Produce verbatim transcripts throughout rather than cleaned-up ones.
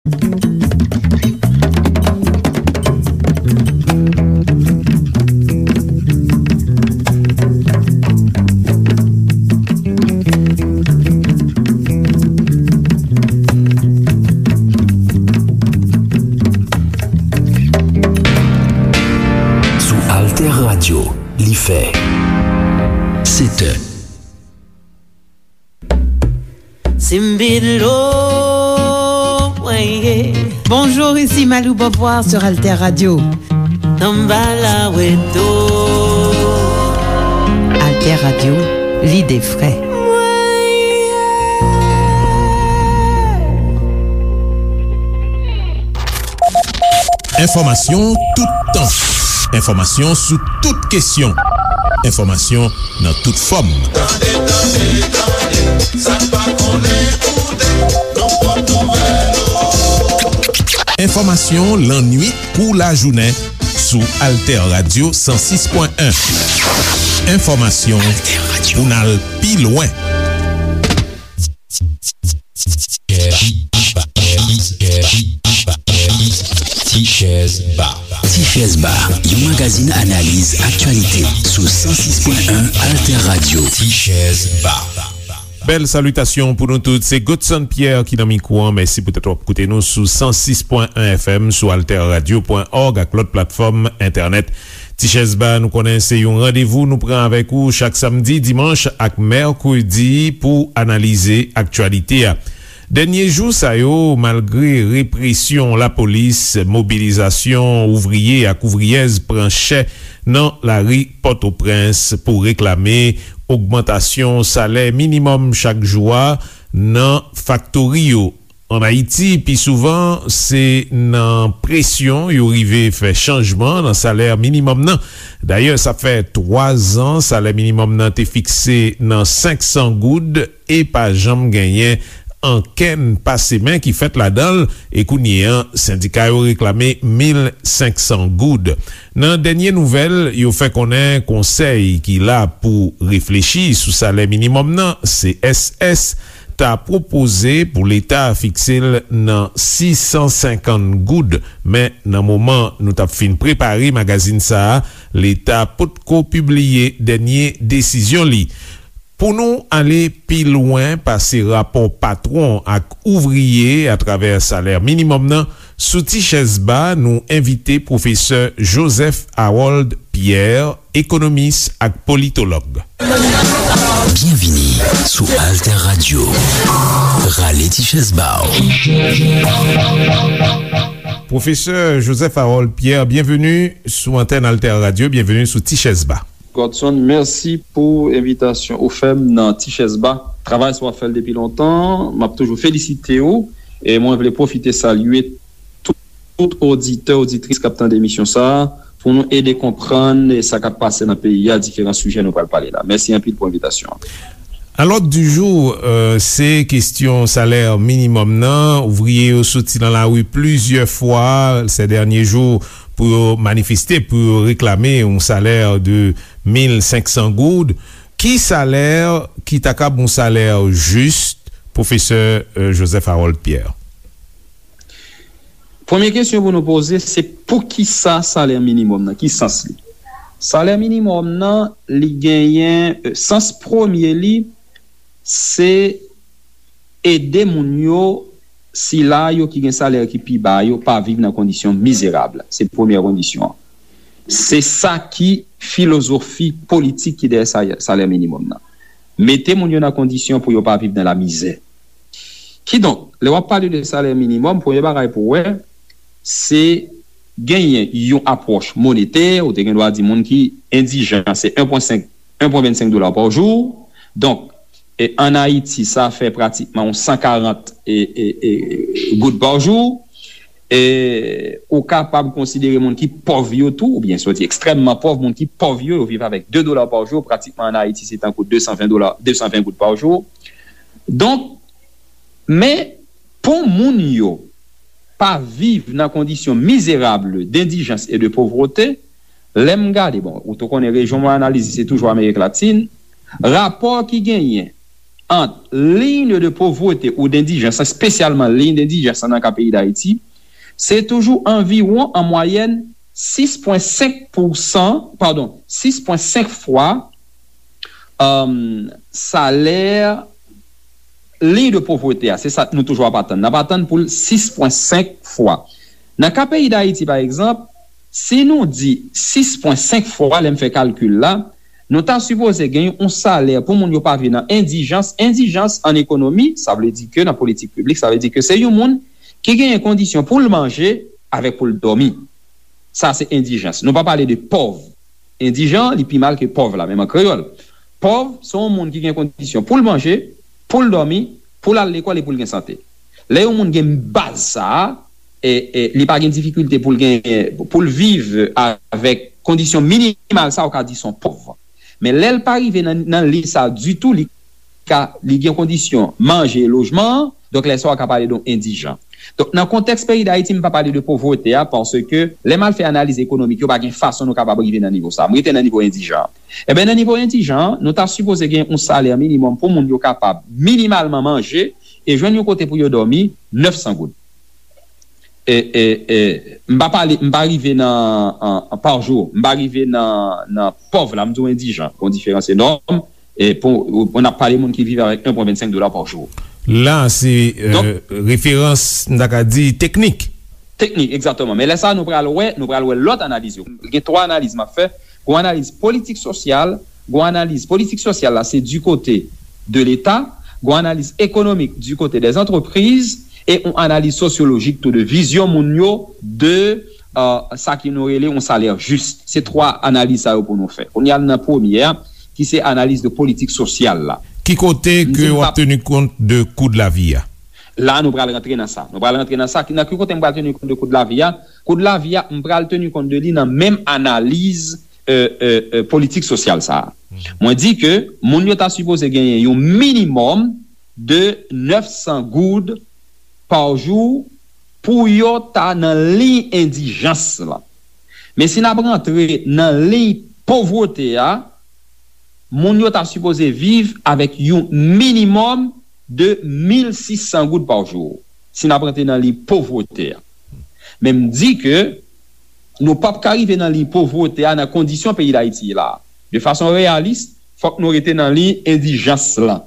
Sou Alter Radio, li fè sèt è. Simbidlo, weye. Bonjour, ici Malou Beauvoir sur Alter Radio. Tambala weto. Alter Radio, l'idée vraie. Enfòmasyon toutan. Enfòmasyon sou tout kesyon. Enfòmasyon nan tout fòm. Tande, tande, tande, sa n pa konnen koute, nan pwòp nouvèl yo. Enfòmasyon lannuit kou lajounen sou Alter Radio san sis pwen en. Enfòmasyon pou n al pi lwen. Tichèz Ba. Tichèz Ba, yon magazin analiz aktyalite sou san sis pwen en Alter Radio. Tichèz Ba. Bèl salitasyon pou nou tout. Se Godson Pierre ki nan mikwo an. Mèsi poutèt w ap koute nou sou san sis pwen en F M, sou alter radio pwen org ak lòt platfòm entènèt. Tichèz Ba, nou konnen se yon randevou nou pran avèk ou chak samdi, dimanch ak mèkredi pou analize aktyalite a. Dènye jou sa yo, malgre represyon lapolis, mobilizasyon ouvriye ak ouvriyèz pran chè nan lari Pòtoprens pou reklame ogmantasyon salè minimòm chak jou a nan faktori yo. Ann Ayiti, pi souvan, se nan presyon yo rive fè chanjman nan salè minimòm nan. Dayè, sa fè twa zan salè minimòm nan te fikse nan senk san goud e pa janm genyen ankenn pase men ki fèt ladan l, e kounye a, sendika yo reklame mil senk san goud. Nan dènye nouvèl, yo fè konnen konsèy ki la pou reflechi sou salè minimòm nan, C S S, ta pwopoze pou Leta fikse l nan sis san senkant goud, men nan moman nou t ap fin prepare magazin sa a, Leta potko pibliye dènye desizyon li. Pou nou ale pi lwen pase rapò patwon ak ouvriye atravè salè minimòm nan, sou Tichèz Ba, nou envite pwofesè Joseph Harold Pierre, ekonomis ak politològ. Byenvini sou Alter Radio. Rale ti chèz ba w. Pwofesè Joseph Harold Pierre, byenveni sou antèn Alter Radio, byenveni sou Ti Chèz Ba. Godson, mèsi pou envitasyon ou fè m nan Ti Chèz Ba. Travay sa w ap fè l depi lontan, m ap toujou felisite w, e mwen vle pwofite salye tout, tout oditè, oditris k ap tande emisyon sa a, pou nou ede konprann sa k ap pase nan peyi a, diferan sijè nou pral pale la. Mèsi anpil pou envitasyon an. A l'ordre du jour, euh, se kesyon salè minimòm nan. Ouvriye yo soti nan lari plizyè fwa ces derniers jours pou yo manifeste, pou yo reklame yon salè de mil senk san goud. Ki salè ki ta kab yon salè jis, pwofesè, euh, Joseph Harold Pierre? Premye kesyon pou nou poze, se poukisa salè minimòm nan? Ki sans li? Salè minimòm nan, li genyen, euh, sans premye li, se ede moun yo, sila yo ki gen salè ki pi ba yo, pa viv nan kondisyon mizerab. Se premyè kondisyon an. Se sa ki filozofi politik ki dèyè sa-, salè minimòm nan. Mete moun yo nan kondisyon pou yo pa viv nan lamizè. Kidonk, lè w ap pale de salè minimòm, premye bagay pou w wè, se genyen yon apwòch monetè, ou te gen dwa di moun ki endijan, se en pwen senk, en pwen vennsenk dola pa jou. Donk, e, ann Ayiti, sa fè pratikman yon san karant, e, e, e, goud pa jou. E, ou kapab konsidere moun ki pòv yo tou, oubyen si w di ekstrèmman pòv, moun ki pòv yo, yo viv avèk de dola pa jou, pratikman ann Ayiti, se tankou de san ven dola, de san ven goud pa jou. Donk, men, pou moun yo pa viv nan kondisyon mizerab, d'endijans e de povrete, lè m gade, bon, ou tou konnen rejyon mwen analize, se toujou Amerik Latin, rapò ki genyen ant liy de povrete ou dendijans, espesyalman liy dendijans nan ka peyi Dayiti, se toujou anviwon, an mwayèn, sis pwen senk pousan, padon, sis pwen senk fwa, um, salè liy de povrete a. Se sa nou toujou ap atann. N ap atann pou l sis pwen senk fwa. Nan ka peyi Dayiti, pa egzanp, si nou di sis pwen senk fwa, lè m fè kalkil la, nou ta sipoze gen yon salè pou moun yo pa viv nan endijans. Endijans an ekonomi, sa vle di ke nan politik piblik, sa vle di ke se yon moun ki genyen kondisyon pou l manje avèk pou l dòmi. Sa se endijans. Nou pa pale de pòv. Endijan, li pi mal ke pòv la, menm an kreyòl. Pòv, se yon moun ki gen kondisyon pou l manje, pou l dòmi, pou l al lekòl e pou l gen sante. Lè yon moun gen baz sa a, e, e, li pa gen difikilte pou l gen, pou l viv avèk kondisyon minimal sa, ou ka di se yon pòv. Men lè l pa rive nan, nan liy sa ditou, li ka, li gen kondisyon manje e lojman, donk lè sa w ka pale de yon endijan. Donk, nan kontèks peyi Dayiti, m pa pale de povrete a, paske lè m al fè analiz ekonomik yo, pa gen fason nou kapab rive nan nivo sa. M rete nan nivo endijan. Enben, nan nivo endijan, nou ta sipoze gen yon salè minimòm pou moun yo kapab minimalman manje e jwenn yon kote pou yo dòmi, nèf san goud. E, e, e, m pa pale, m pa rive nan, an, an, pa jou, m pa rive nan, nan pòv la, m di w endijan, gon diferans enòm. E pou, pou n ap pale moun ki viv avèk en pwen vennsenk dola pa jou. La, se, euh, referans, m ta ka di, teknik. Teknik, egzakteman. Men lè sa, nou pral wè, nou pral wè lòt analiz yo. Gen twa analiz m ap fè. Gon analiz politik sosyal, gon analiz politik sosyal la, se du côté de l'État, gon analiz ekonomik du côté des entreprises, e yon analiz sosyolojik tou de vizyon moun yo de, euh, sa ki nou rele yon salè jis. Se twa analiz sa yo pou nou fè. Kounye a, nan premye a, ki se analiz de politik sosyal la. Ki kote ke w ap teni kont de kou de lavi a? La, nou pral rantre nan sa. Nou pral rantre nan sa. Ki, nan ki kote m pral teni kont de kou de lavi a? Kou de lavi a, m pral teni kont de li nan menm analiz, euh, euh, euh, politik sosyal sa a. Mwen di ke moun yo ta sipoze genyen yon minimòm de nèf san goud pa jou pou yo ta nan liy endijans la. Men si n ap rantre nan liy povrete a, moun yo ta sipoze viv avèk yon minimòm de mil sis san goud pa jou, si n ap rantre nan liy povrete a. Men m di ke nou p ap ka rive nan liy povrete a nan kondisyon peyi Dayiti ye la a. De fason reyalis, fòk nou rete nan liy endijans lan.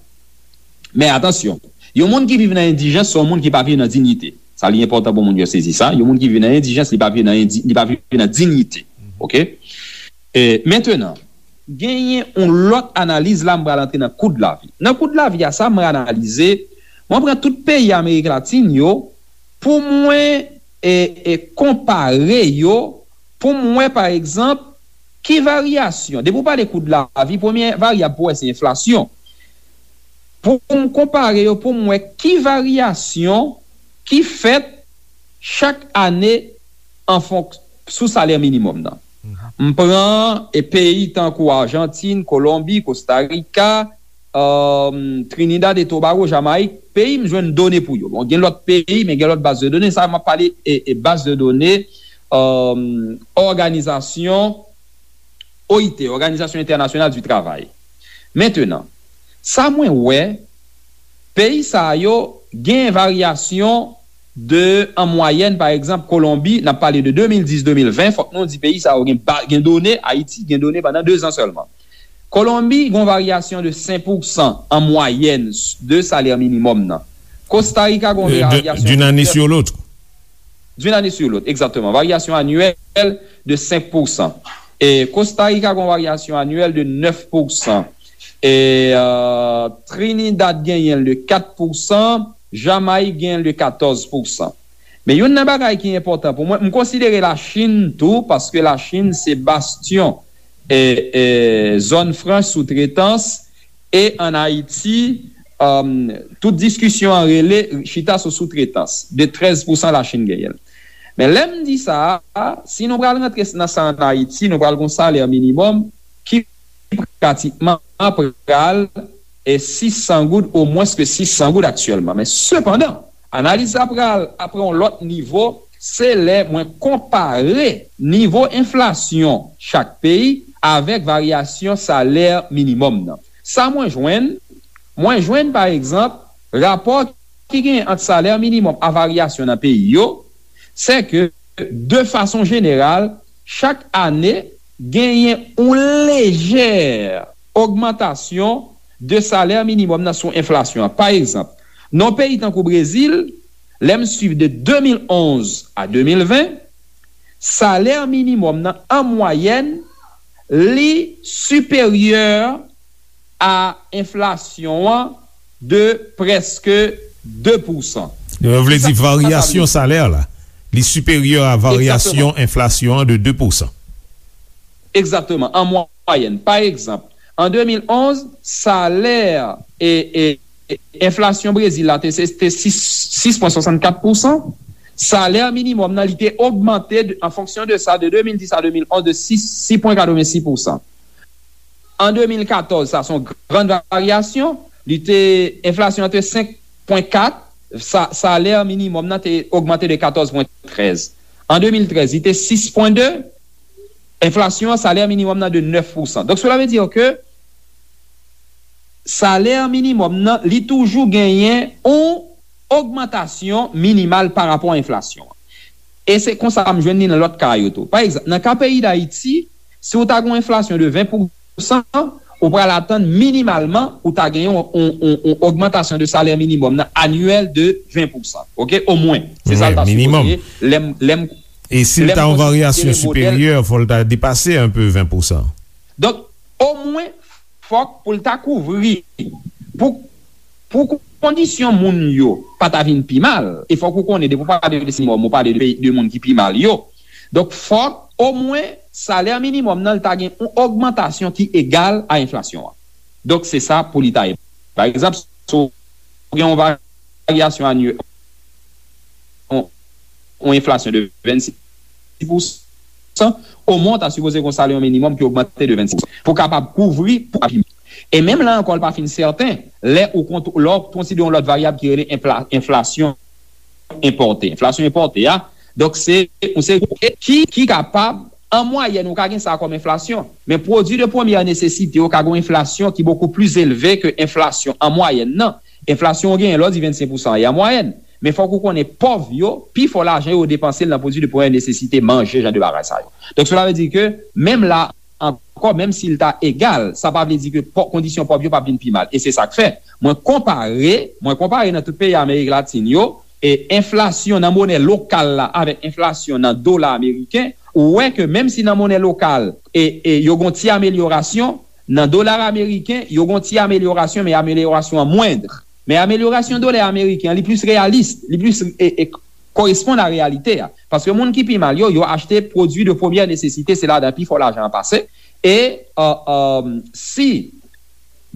Men atansyon, yon moun ki viv nan endijans, se yon moun ki pa viv nan diyite. Sa li enpòtan pou moun yo sezi sa. Yon moun ki viv nan endijans, li pa viv nan endi-, li pa viv nan diyite. Oke? E, mentenan, genyen yon lòt analiz la, m pral antre nan kou de lavi. Nan kou de lavi a, sa mwen analize, mwen pran tout peyi Amerik Latin yo, pou mwen, e, e, konpare yo, pou m wè, pa egzanp, ki varyasyon. Depi w pale kou de lavi, premye varyab pou wè se enflasyon. Pou m konpare yo, pou m wè ki varyasyon ki fèt chak ane an fonk-, sou salè minimòm nan. M pran, e, peyi tankou Ajantin, Kolonbi, Kostarika, um, Trinidad e Tobago, Jamayik, peyi m jwenn done pou yo. Bon, gen lòt peyi, men gen lòt baz de done. Sa, m ap pale, e, e baz de done, um, òganizasyon O I T, Òganizasyon Entènasyonal di Travay. Mentenan, sa mwen wè, peyi sa yo gen varyasyon de, an mwayèn, pa egzanp, Kolonbi, n ap pale de de mil dis, de mil ven, fòk nou di peyi sa yo gen ba-, gen done, Ayiti gen done pandan de zan sèlman. Kolonbi gen yon varyasyon de senk pousan an mwayèn de salè minimòm nan. Kostarika gen yon varyasyon d'une année sur l'autre. D'une année sur l'autre, exactement. Varyasyon anyèl de senk pousan. E Kostarika gen yon varyasyon anyèl de nèf pousan. E, euh, Trinidad genyen l de kat pousan, Jamayik genyen l de katòz pousan. Men youn nan bagay ki enpòtan pou mwen, m konsidere Lachin tou, paske Lachin se bastyon, e, e, zòn franch soutretans, e ann Ayiti, um, tout diskisyon an rele chita sou soutretans, de trèz pousan Lachin genyen l. Men lè m di sa a, si nou pral rantre nan sa ann Ayiti, nou pral gon salè minimòm ki pratikman pral, e, sis san goud, o mwens ke sis san goud aktyèlman. Men sepandan, analiz la pral, ap pran yon lòt nivo, se lè mwen konpare nivo enflasyon chak peyi avèk varyasyon salè minimòm nan. Sa mwen jwenn, Mwen jwenn, pa egzanp, rapò ki genyen ant salè minimòm a varyasyon nan peyi yo, se ke, de fason jeneral, chak ane, genyen yon lejè ogmantasyon de salè minimòm nan sou enflasyon an. Pa egzanp, nan yon peyi tankou Brezil, lè m swiv de de mil onz a de mil ven, salè minimòm nan, an mwayèn, li siperyè a enflasyon an de prèske de pousan. Sa, sa vle di sa, sa vle varyasyon di. Salè la, li siperyè a varyasyon Egzakteman. Enflasyon an de de pousan. Egzakteman, an mwayèn. Pa egzanp, an de mil onz, salè e, e, e enflasyon Brezil la te, se, te sis, sis pwen swasannkat pousan. Salè minimòm nan, li te ogmante de, an fonksyon de sa, de de mil dis a de mil onz, de sis, sis pwen katrevensis pousan. An de mil katòz, sa se yon grann varyasyon. Li te, enflasyon an te senk pwen kat, sa, salè minimòm nan te ogmante de katòz pwen trèz. An de mil trèz, li te sis pwen de, enflasyon an, salè minimòm nan de nèf pousan. Donk, cela veut dire que salè minimòm nan, li toujou genyen yon ogmantasyon minimal pa rapò a enflasyon an. E se konsa m jwenn li nan lòt ka yo tou. Pa egzanp, nan ka peyi Dayiti, si w ta gen yon enflasyon de ven pousan, ou pral atann minimalman ou ta gen yon, yon, yon, yon ogmantasyon de salè minimòm nan anyèl de ven pousan. Oke? Omwen. Se sa l ta sipoze ye. Lè m, lè m, E si l ta yon varyasyon siperyè, fò l ta depase enpe ven pousan. Donk, omwen, fòk pou l ta kouvri, pou, pou kondisyon moun yo pa ta vin pi mal, e fòk ou konnen, depi w pale de minimòm, ou pale de, de moun ki pi mal yo. Donk, fòk, omwen, salè minimòm nan, l ta gen yon ogmantasyon ki egal a enflasyon an. Donk, se sa pou li ta ye. Pa egzanp, si w gen yon varyasyon anyè-, yon, yon enflasyon de vennsis pousan, omwen w ta sipoze gen yon salè minimòm ki ogmante de vennsis pousan pou kapab kouvri pou api. E menm la ankò, l pa fin sèten, lè ou kont-, lè w konsidere yon lòt varyab ki rele enfla-, enflasyon enpòte. Enflasyon enpòte a, donk, se yon seri ki, ki kapab, an mwayèn, ou ka gen sa kòm enflasyon. Men pwodui de premyè nesesite yo ka gen yon enflasyon ki bokou plis elve ke enflasyon an mwayèn nan. Enflasyon ou genyen lè w di vennsenk pousan an, e an mwayèn. Men fòk ou konnen pòv yo, pi fò lajan yo depanse l nan pwodui de premyè nesesite, manje, jan de bagay sa yo. Donk, cela veut dire que, menm la ankò, menm si l ta egal, sa pa vle di ke pò-, kondisyon pòv yo p ap vin pi mal. E se sa k fè, mwen konpare, mwen konpare nan tout peyi Amerik Latin yo, e enflasyon nan monè lokal la avèk enflasyon nan dola ameriken, ou wè ke menm si nan monè lokal, e, e yo gon ti amelyorasyon, nan dola ameriken, yo gon ti amelyorasyon, men amelyorasyon an mwendr. Men amelyorasyon dola ameriken an, li plis reyalis, li plis, e, e, koresponn a reyalite a. Paske moun ki pi mal yo, yo achte pwodui de premyè nesesite, se ladan pi fò lajan an pase. E, e, e, si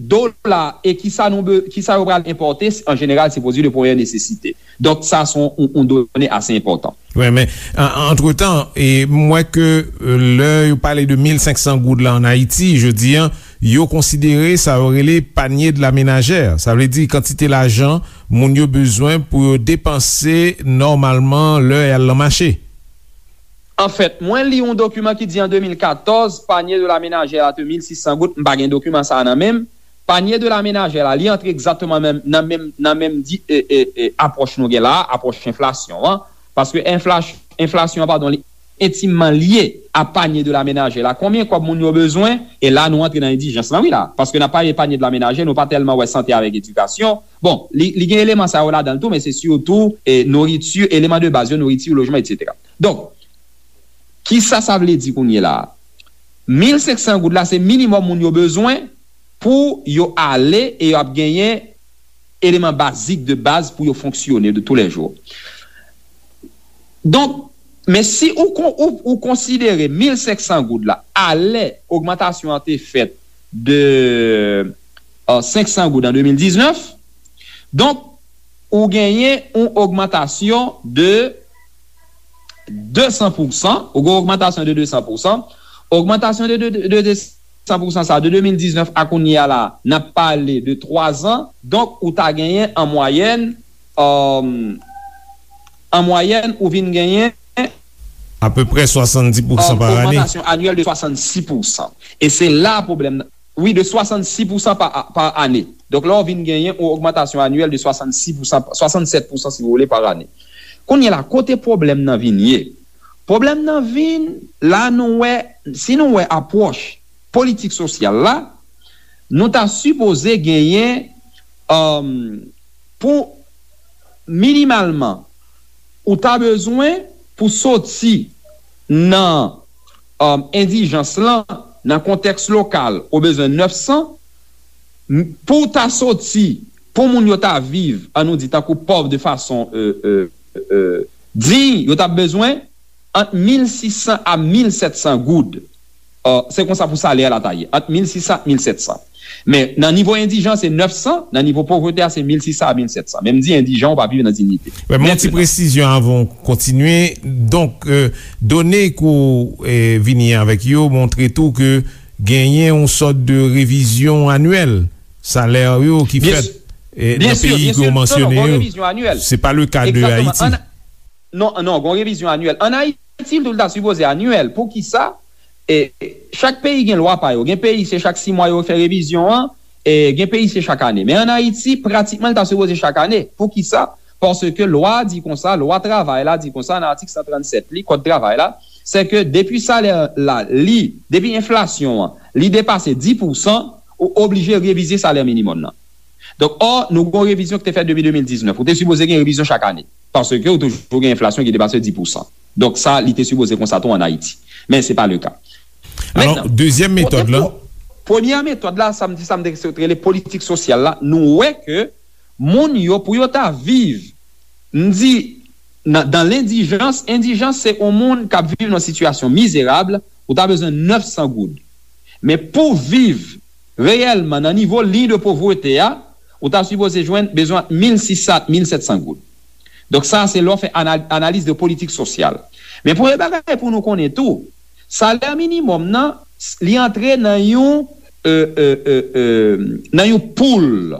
dola e kisa nou be-, kisa yo pral enpòte, an jeneral, se pwodui de premyè nesesite. Donk, sa se yon, yon, yon done ase enpòtan. Wi, men, an, antretan, e, m wè ke, e, lè yo pale de mil senk san goud la an Ayiti, jodi a, yo konsidere sa yo rele panier de la ménagère. Sa vle di kantite lajan moun yo bezwen pou yo depanse nòmalman lè y al nan mache. Anfèt, mwen li yon dokiman ki di an de mil katòz, panier de la ménagère la te mil sis san goud, m pa gen dokiman sa a nan men m. Panier de la ménagère la, li antre egzakteman menm, nan menm, nan menm di, e, e, e, apwòch nou gen la a, apwòch enflasyon an. Paske enfla-, enflasyon an, padon, li entimman lye a panier de la ménagère la. Konbyen kòb moun yo bezwen? E la, nou antre nan endijans lan, wi, la. Paske n ap pale panier de la ménagère, nou pa tèlman wè sante avèk edikasyon. Bon, li, li gen eleman sa yo ladan l tou, men se sitou, e, nouriti, eleman de baz yo, nouriti, lojman, etsetera. Donk, kisa sa vle di kounye la a? Mil senk san goud la, se minimòm moun yo bezwen pou yo ale e y ap genyen eleman bazik de baz pou yo fonksyone de tou lè jou. Donk, men si ou kon-, ou, ou konsidere mil senk san goud la, alè ogmantasyon an te fèt de, e, senk san goud an de mil diznèf, donk, ou genyen yon ogmantasyon de de san pousan, ou gen ogmantasyon de de san pousan. Ogmantasyon de, de, de, de de san pousan sa, de de mil diznèf a kounye a la, n ap pale de twa zan. Donk, ou ta genyen an mwayèn, e, an mwayèn, ou vin genyen apeprè swasanndis pousan e, pa ane. Ogmantasyon anyèl de swasanndis pousan. E se la pwoblèm nan. wi, de swasannsis pousan pa, pa ane. Donk, la, w vin genyen yon ogmantasyon anyèl de swasannsis pousan, swasannsèt pousan, si w vle, pa ane. Kounye a la, kote pwoblèm nan vin ye? Pwoblèm nan vin, la, nou wè, si nou wè apwòch politik sosyal la, nou ta sipoze genyen, um, pou minimalman, ou ta bezwen pou soti nan, um, endijans lan, nan kontèks lokal, ou bezwen nèf san, m- pou w ta soti, pou moun yo ta viv, an nou di, tankou pòv de fason, euh, euh, euh, diy, yo ta bezwen ant mil sis san a mil sèt san goud. Euh, se konsa pou salè a la ta ye, ant mil sis san ak mil sèt san. Men nan nivo endijans, se nèf san, nan nivo povrete a, se mil sis san a mil sèt san. Men m di endijan, ou pa viv nan diyite. Wè, men yon ti presizyon avan w kontinye. Donk, euh, done ke w, euh, vini avèk yo montre tou ke genyen yon sòt de revizyon anyèl salè yo ki fèt, euh, nan peyi ke w mansyone yo. Se pa le ka de Ayiti. Non, non, gen yon revizyon anyèl. An Ayiti, tou, l ta sipoze anyèl. Poukisa? E, chak peyi gen lwa pa yo. Gen peyi, se chak sis mwa yo fè revizyon an, e gen peyi, se chak ane. Men an Ayiti, pratikman, l ta sipoze chak ane. Poukisa? Paske lwa a di konsa, lwa travay la di konsa, nan atik san trannsèt li, kòd travay la, se ke depi salè la, li, depi enflasyon an, li depase dis pousan, ou oblije revize salè minimòm nan. Donk, ò, nou gen yon revizyon ki te fèt depi de mil diznèf. Ou te sipoze gen revizyon chak ane. Paske ou toujou gen enflasyon ki depase dis pousan. Donk, sa, li te sipoze konsa tou an Ayiti. Men se pa le ka. Alò, dezyèm metòd la. Premye metòd la, sa m di, sa m te rele politik sosyal la, nou wè ke moun yo, pou yo ta viv, m di, nan, dan lendijans, endijans se yon moun k ap viv nan sitiyasyon mizerab, ou ta bezwen nèf san goud. Men pou viv reyèlman nan nivo liy de povrete a, ou ta sipoze jwenn bezwen mil sis san, mil sèt san goud. Donk sa, se lè w fè ana- analiz de politik sosyal. Men premye bagay pou nou konnen tou, salè minimòm nan, li antre nan yon, euh, euh, euh, euh, nan yon poul.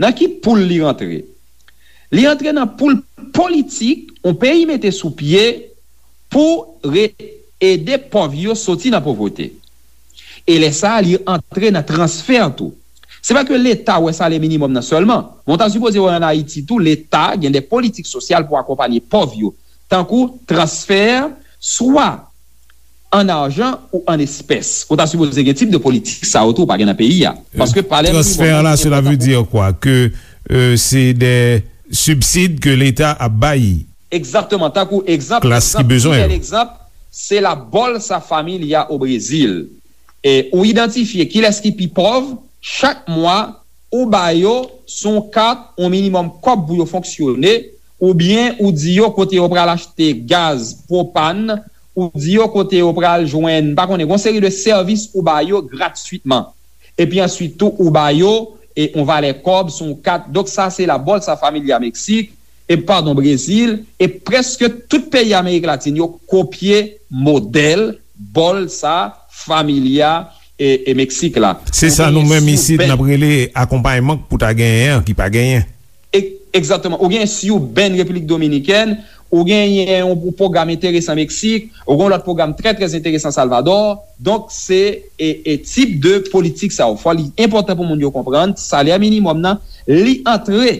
Nan ki poul li rantre? Li antre nan poul politik yon peyi mete sou pye pou re- ede pòv yo soti nan povrete. E lè sa a, li antre nan transfè tou. Se pa ke Leta wè salè minimòm nan sèlman, men w ta sipoze wè an Ayiti tou, Leta gen de politik sosyal pou akonpanye pòv yo, tankou transfè, swa an ajan ou an espès. Ou ta sipoze gen tip de politik sa yo tou, ou pa gen nan peyi a. Paske salè minimòm nan, se enpòtan pou... Transfè la, cela veut dire quoi? Que, euh, c'est des subsides que l'État ap bay. Egzakteman, tankou egzanp, klas ki egzanp, bezwen pi bèl yo. Egzanp, se la Bolsa Familia o Brezil. E ou idantifye kilès ki pi pòv, chak mwa, ou ba yo sou yon kat yon minimòm kòb pou yo fonksyone, oubyen ou di yo kote yo pral achte gaz, pwopàn, ou di yo kote yo pral jwenn, m pa konnen, gon seri de sèvis ou ba yo gratwitman. Epi answit tou, ou ba yo, e, yon valè kòb sou yon kat. Donk, sa se la Bolsa Familia Meksik, e, padon, Brezil, e prèske tout peyi Amerik Latin yo kopye modèl Bolsa Familia, e, e Meksik la. Se sa nou menm isit, n ap rele akonpayman pou ta genyen an, ki pa genyen. E- egzakteman. Ou gen Siben, Repiblik Dominikèn, ou genyen yon pwogram enteresan Meksik, ou gen yon lòt pwogram trè, trè enteresan Salvadò. Donk, se, e, e tip de politik sa yo. Fò li enpòtan pou moun yo konprann, salè minimòm nan, li antre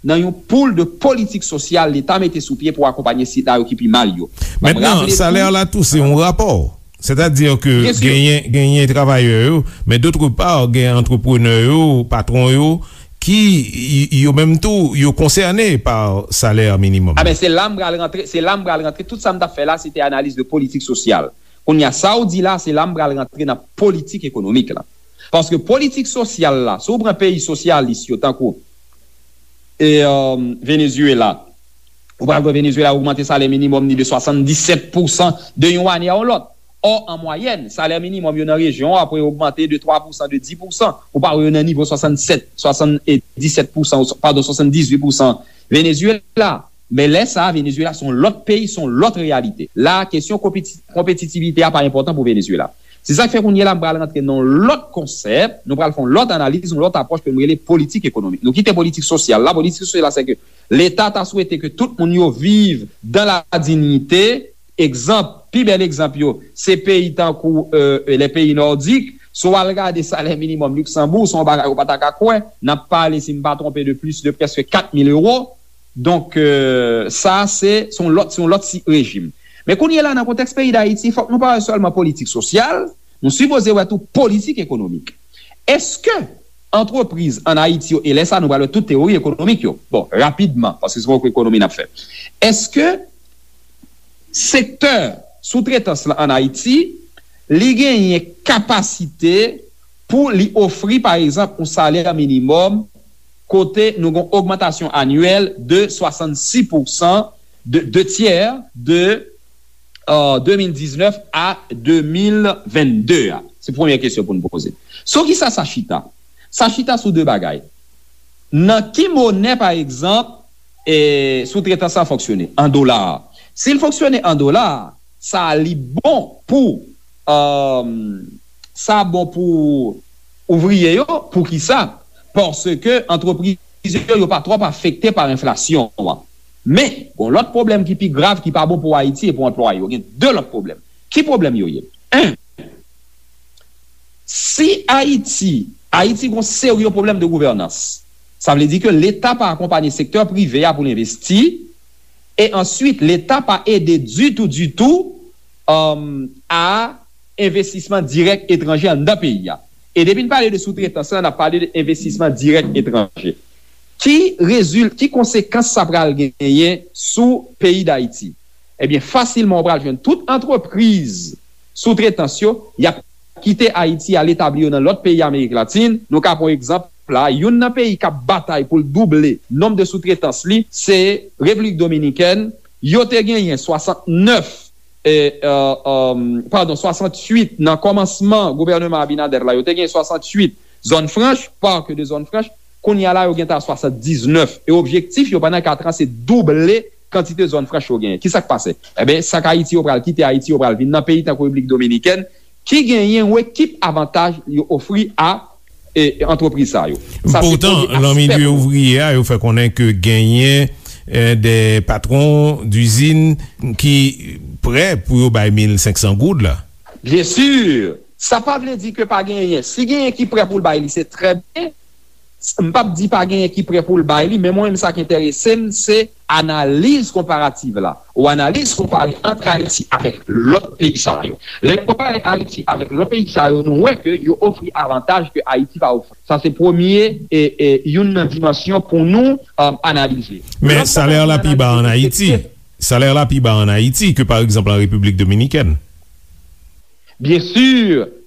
nan yon poul de politik sosyal Leta mete sou pye pou akonpanye sila yo ki pi mal yo. Mentnan, salè la tou, se yon rapò. Sètadi ke genyen, genyen travayè yo, men dòtre pa, gen antreprenè yo, patwon yo, ki, y- yo menm tou, yo konsène pa salè minimòm. A ben, se la m pral rantre, se la m pral rantre. Tout sa m t ap fè la, se te analiz de politik sosyal. Kounye a, sa w di la, se la m pral rantre nan politik ekonomik la. Paske politik sosyal la, si w pran peyi sosyalis yo, tankou, e, euh, Venezuela, ou pral wè Venezuela ogmante salè minimòm ni de swasanndisèt pousan de yon ane a yon lòt. Ò, an mwayèn, salè minimòm yo nan rejyon an ap ogmante de twa pousan, de dis pousan. Ou pa wè yo nan nivo swasannsèt, swasanndisèt pousan, padon, swasanndizuit pousan Venezuela. Men lè sa a, Venezuela se yon lòt peyi, se yon lòt reyalite. La, kesyon konpeti- konpetitivite a pa enpòtan pou Venezuela. Se sa k fè kounye a la, m pral rantre nan yon lòt konsèp, nou pral fè yon lòt analiz, yon lòt apwòch ke m rele politik ekonomik. Nou kite politik sosyal la. Politik sosyal la, se ke Leta ta swete ke tout moun yo viv dans la dignité. Egzanp, pi bèl egzanp yo, se peyi tankou, euh, les pays nordiques, Si w al gade salè minimòm Liksanbou, se yon bagay ou pa ta ka kwè. N ap pale, si m pa twonpe, de plis de prèske kat mil ewo. Donk, euh, sa, se, se yon lòt, se yon lòt si-, rejim. Men kounye a la, nan kontèks peyi Dayiti, fòk nou pa wè sèlman politik sosyal, nou sipoze wè tou politik ekonomik. Èske antrepriz ann Ayiti yo, e lè sa, nou pral wè tout teyori ekonomik yo. Bon, rapidman, paske se poko ekonomi n ap fè. Èske sektè soutretans lan ann Ayiti, li genyen kapasite pou li ofri, pa egzanp, yon salè minimòm kote nou gen yon ogmantasyon anyèl de swasannsis pousan, de, de tyè de, euh, de mil diznèf a de mil vennde a? Se premye kesyon pou n poze. Sou ki sa sa chita? Sa chita sou de bagay. Nan ki monè, pa egzanp, e, soutretans lan fonksyone? An dola. Si l fonksyone an dola, sa li bon pou, um, sa bon pou ouvriye yo. Poukisa? Paske antrepriz yo, yo pa twòp afekte pa enflasyon an. Men, gon lòt pwoblèm ki pi grav, ki pa bon pou Ayiti e pou anplwaye yo. Gen de lòt pwoblèm. Ki pwoblèm yo ye? En, si Ayiti, Ayiti gon serye pwoblèm de gouvènans, sa vle di ke Leta pa akonpanye sektè prive a pou l envesti, e answit, Leta pa ede ditou, ditou, um, a envestisman dirèk etranje anndan peyi a. E depi n pale de soutretans lan, n ap pale de envestisman dirèk etranje. Ki rezil-, ki konsekans sa pral genyen sou peyi Dayiti? Ebyen, fasilman, ou pral jwenn tout antrepriz soutretans yo, y ap kite Ayiti, al etabli yo nan lòt peyi Amerik Latin. Nou ka pran yon egzanp la, youn nan peyi k ap batay pou l double nonb de soutretans li, se Repiblik Dominikèn. Yo te genyen swasantnèf, e, e, e, padon, swasanntuit nan kòmansman gouvèneman Abinader la, yo te genyen swasanntuit zòn franch, parc de zone franche. Kounye a la, yo gentan a swasanndiznèf. E objektif yo pandan kat an, se double kantite zòn franch yo genyen. Kisa k pase? Ebyen, sa k Ayiti yo pral kite Ayiti, yo pral vin nan peyi tankou Repiblik Dominikèn, ki genyen yon ekip avantaj yo ofri a, e, antrepriz sa yo. Sa se premye aspè pou nou. Poutan, nan milye ouvriye a, yo fè konnen ke genyen, e, de patwon dizin ki prè pou yo bay mil senk san goud la. Byen si, sa pa vle di ke pa genyen. Si genyen ki prè pou l bay li, se trè byen. M p ap di pa genyen ki prè pou l bay li, men mwen menm sa k enterese m, se analiz konparativ la. Ou analiz konpare ant Ayiti avèk lòt peyi sa yo. Lè n konpare Ayiti avèk lòt peyi sa yo, nou wè ke yo ofri avantaj ke Ayiti pa ofri. Sa se premye, e, e, youn nan dimansyon pou nou, um, analize. Men lòt bagay pou n analize, se ke salè la pi ba ann Ayiti. Salè la pi ba ann Ayiti ke, pa egzanp, an Repiblik Dominikèn. Byen si,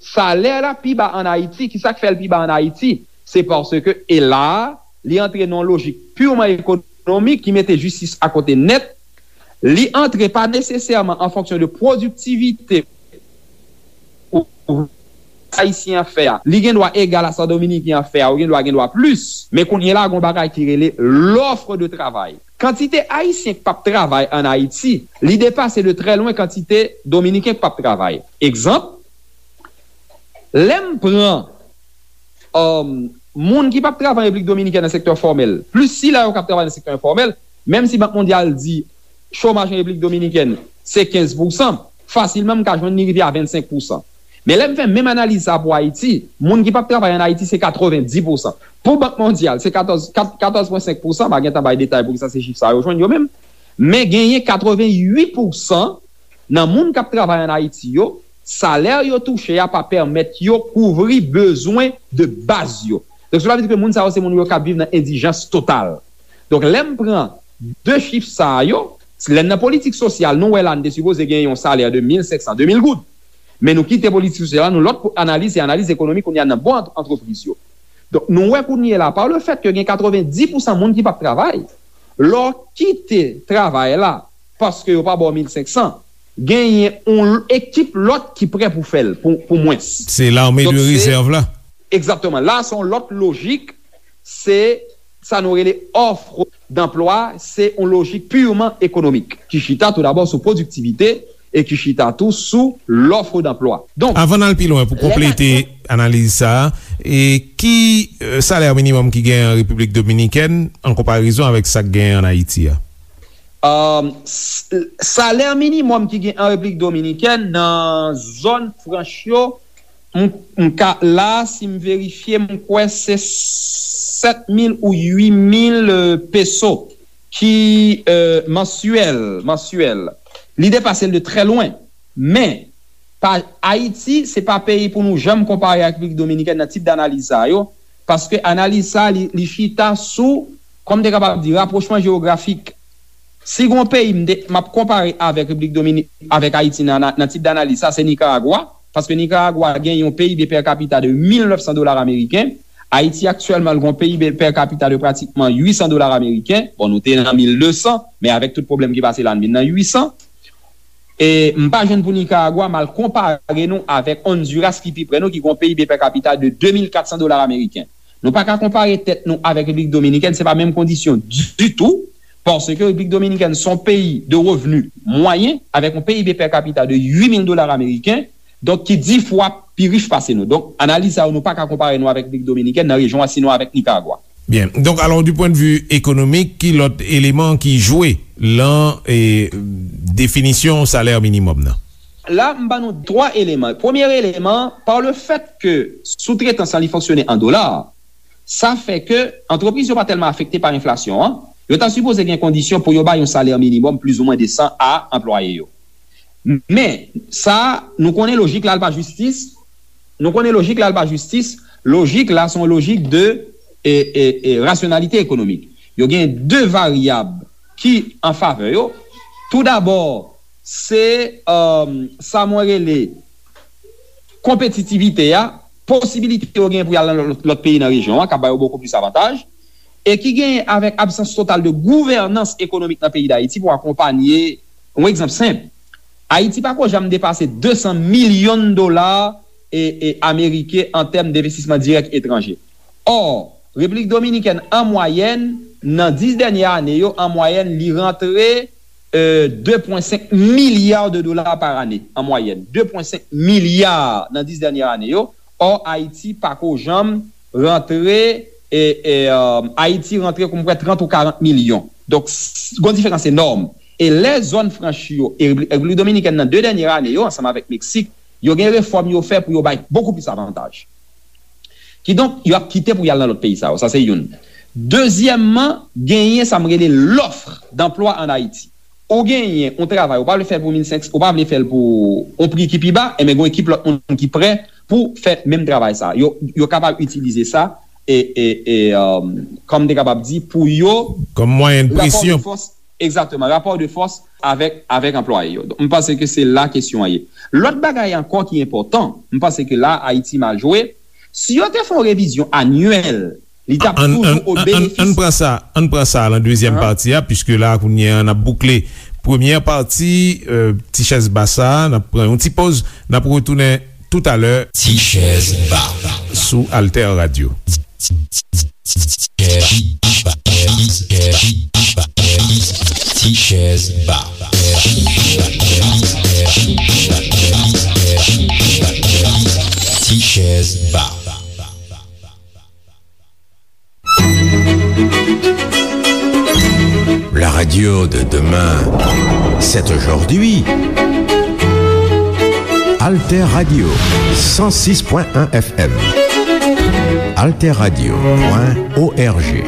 salè la pi ba ann Ayiti. Kisa k fè l pi ba ann Ayiti? Se paske, e la, li antre nan yon lojik pirman ekonomik ki mete jistis akote nèt. Li antre pa nesesèman an fonksyon de pwodiktivite ou ayisyen an fè a. Li gen dwa egal a sa dominiken an fè a, ou gen dwa gen dwa plis. Men kounye a la, gen yon bagay ki rele l'offre de travail. Kantite ayisyen k p ap travay ann Ayiti, li depase de trè lwen kantite dominiken k p ap travay. Egzanp, lè m pran, um, moun ki p ap travay an Repiblik Dominikèn nan sektè fòmèl, plis sila yo k ap travay nan sektè enfòmèl, menm si Bank Mondyal di chomaj an Repiblik Dominikèn se kenz pousan, fasilman m ka jwenn li rive a vennsenk pousan. Men lè m fè menm analiz sa pou Ayiti, moun ki p ap travay ann Ayiti se katrevenndis pousan. Pou Bank Mondyal, se katòz, kat-, katòz pwen senk pousan, m a gentan bay detay poukisa se chif sa yo jwenn yo menm. Men genyen katrevennuit pousan nan moun k ap travay ann Ayiti yo, salè yo touche a pa pèmèt yo kouvri bezwen de baz yo. Donk, cela veut dire ke moun sa yo se moun yo k ap viv nan endijans total. Donk, lè m pran de chif sa yo, lè n nan politik sosyal, nou wè la n te sipoze gen yon salè de mil senk san, de mil goud. Men nou kite politik sosyal la, nou lòt analiz, se analiz ekonomik kounye a nan bon ant-, antrepriz yo. Donk, nou wè kounye a la, pa le fèt ke gen katrevenndis pousan moun ki p ap travay, lè w kite travay la, paske yo pa ba w mil senk san, genyen yon ekip lòt ki prè pou fè l, pou, pou mwens. Se lame de rezèv la. Egzakteman. La, se yon lòt lojik, se sa nou rele offre d'emploi, se yon lojik pirman ekonomik, ki chita tou dabò sou pwodiktivite e ki chita tou sou l'offre d'emploi. Donk, avan n al pi lwen, pou konplete analiz sa a, e ki, e, salè minimòm ki gen an Repiblik Dominikèn an konparezon avèk sa k gen an Ayiti a? Um, s-, salè minimòm ki gen an Repiblik Dominikèn nan zòn franch yo, m, m ka, la, si m verifye, m kwè se sèt mil ou uit mil, euh, peso ki, euh, mansyèl, mansyèl. Li depase l de trè lwen. Men, pa, Ayiti, se pa peyi pou nou janm konpare ak Repiblik Dominikèn nan tip danaliz sa yo, paske analiz sa, li, li chita sou, kòm te kapab di, rapwochman jewografik. Si gon peyi m te, m ap konpare avèk Repiblik Domini-, avèk Ayiti nan, nan, nan tip danaliz sa, se Nikaragwa, paske Nikaragwa gen yon P I B per capita de mil nèf san dola ameriken. Ayiti aktyèlman, l gon P I B per capita de pratikman uit san dola ameriken. Bon, nou te nan mil de san, men avèk tout pwoblèm ki pase la, n vin nan uit san. E m pa jwenn pou Nikaragwa, m al konpare nou avèk Honduras ki pi prè nou, ki gon P I B per capita de de mil kat san dola ameriken. Nou pa ka konpare tèt nou avèk Repiblik Dominikèn, se pa menm kondisyon ditou, paske Repiblik Dominikèn se yon peyi de revni mwayen, avèk yon P I B per capita de uit mil dola ameriken, donk ki dis fwa pi rich pase nou. Donk, analiz sa yo, nou pa ka konpare nou avèk Repiblik Dominikèn nan rejyon an, sinon avèk Nikaragwa. Byen. Donk, alò, du point de vue économique, ki lòt eleman ki jwe lan, e, definisyon salè minimòm nan? La, m ban nou twa eleman. Premye eleman, pa le fèt ke soutretans lan li fonksyone an dola, sa fè ke antrepriz yo pa tèlman afekte pa enflasyon an. Yo ta sipoze gen kondisyon pou yo bay yon salè minimòm plizoumwen desan a anplwaye yo. Men, sa, nou konnen lojik la, l pa jistis. Nou konnen lojik la, l pa jistis. Lojik la, se yon lojik de, e, e, e, rasyonalite ekonomik. Yo gen de varyab ki an favè yo. Toudabò, se, um, sa mwen rele konpetitivite a, posibilite yo gen pou y al nan lòt, lòt peyi nan rejyon an, k ap ba yo bokou plis avantaj, e ki genyen avèk absans total de gouvènans ekonomik nan peyi Dayiti pou akonpanye, yon egzanp senp, Ayiti pa ko janm depase de san milyon dola, e, e, ameriken an tèm denvestisman dirèk etranje. Ò, Repiblik Dominikèn, an mwayèn, nan dis dènye ane yo, an mwayèn, li rantre, e, de pwen senk milya de dola pa ane, an mwayèn. De pwen senk milya nan dis dènye ane yo. Ò, Ayiti pa ko janm rantre, e, e, e, Ayiti rantre, kou m kwè, trant ou karant milyon. Donk, s-, gon diferans enòm. E lè zòn franch yo, e Repiblik Dominikèn nan de dènye ane yo, ansanm avèk Meksik, yo gen refòm yo fè pou yo bay bokou plis avantaj. Kidonk, yo ap kite pou y al nan lòt peyi sa yo. Sa se youn. Dezyèmman, genyen sa m rele lòf danplwa ann Ayiti. Ou genyen yon travay, ou pa vle fè l pou mil senk san, ou pa vle fè l pou yon pri ki pi ba, enben, gen yon ekip lòt moun ki prè pou fè menm travay sa. Yo, yo kapab itilize sa, e, e, e, um, kòm m te kapab di, pou yo, kòm mwayen de presyon. Rapò de fòs, egzakteman, rapò de fòs avèk, avèk anplwaye yo. Donk, m panse ke se la kesyon an ye. Lòt bagay ankò ki enpòtan, m panse ke la, Ayiti mal jwe. Si yo te fè yon revizyon anyèl, li t ap toujou o benefis. Ann pran sa, ann pran sa lan dezyèm pati a, piske la, kounye a, n ap boukle premyè pati, e, Ti Chèz Ba sa, n ap pran yon ti poz, n ap retounen toutalè. Ti Chèz Ba sou Alter Radio. Ti Chèz Ba. Ti Chèz Ba. La radio de demain, c'est aujourd'hui. Alter Radio, cent six point un F M. Alter Radio point O R G.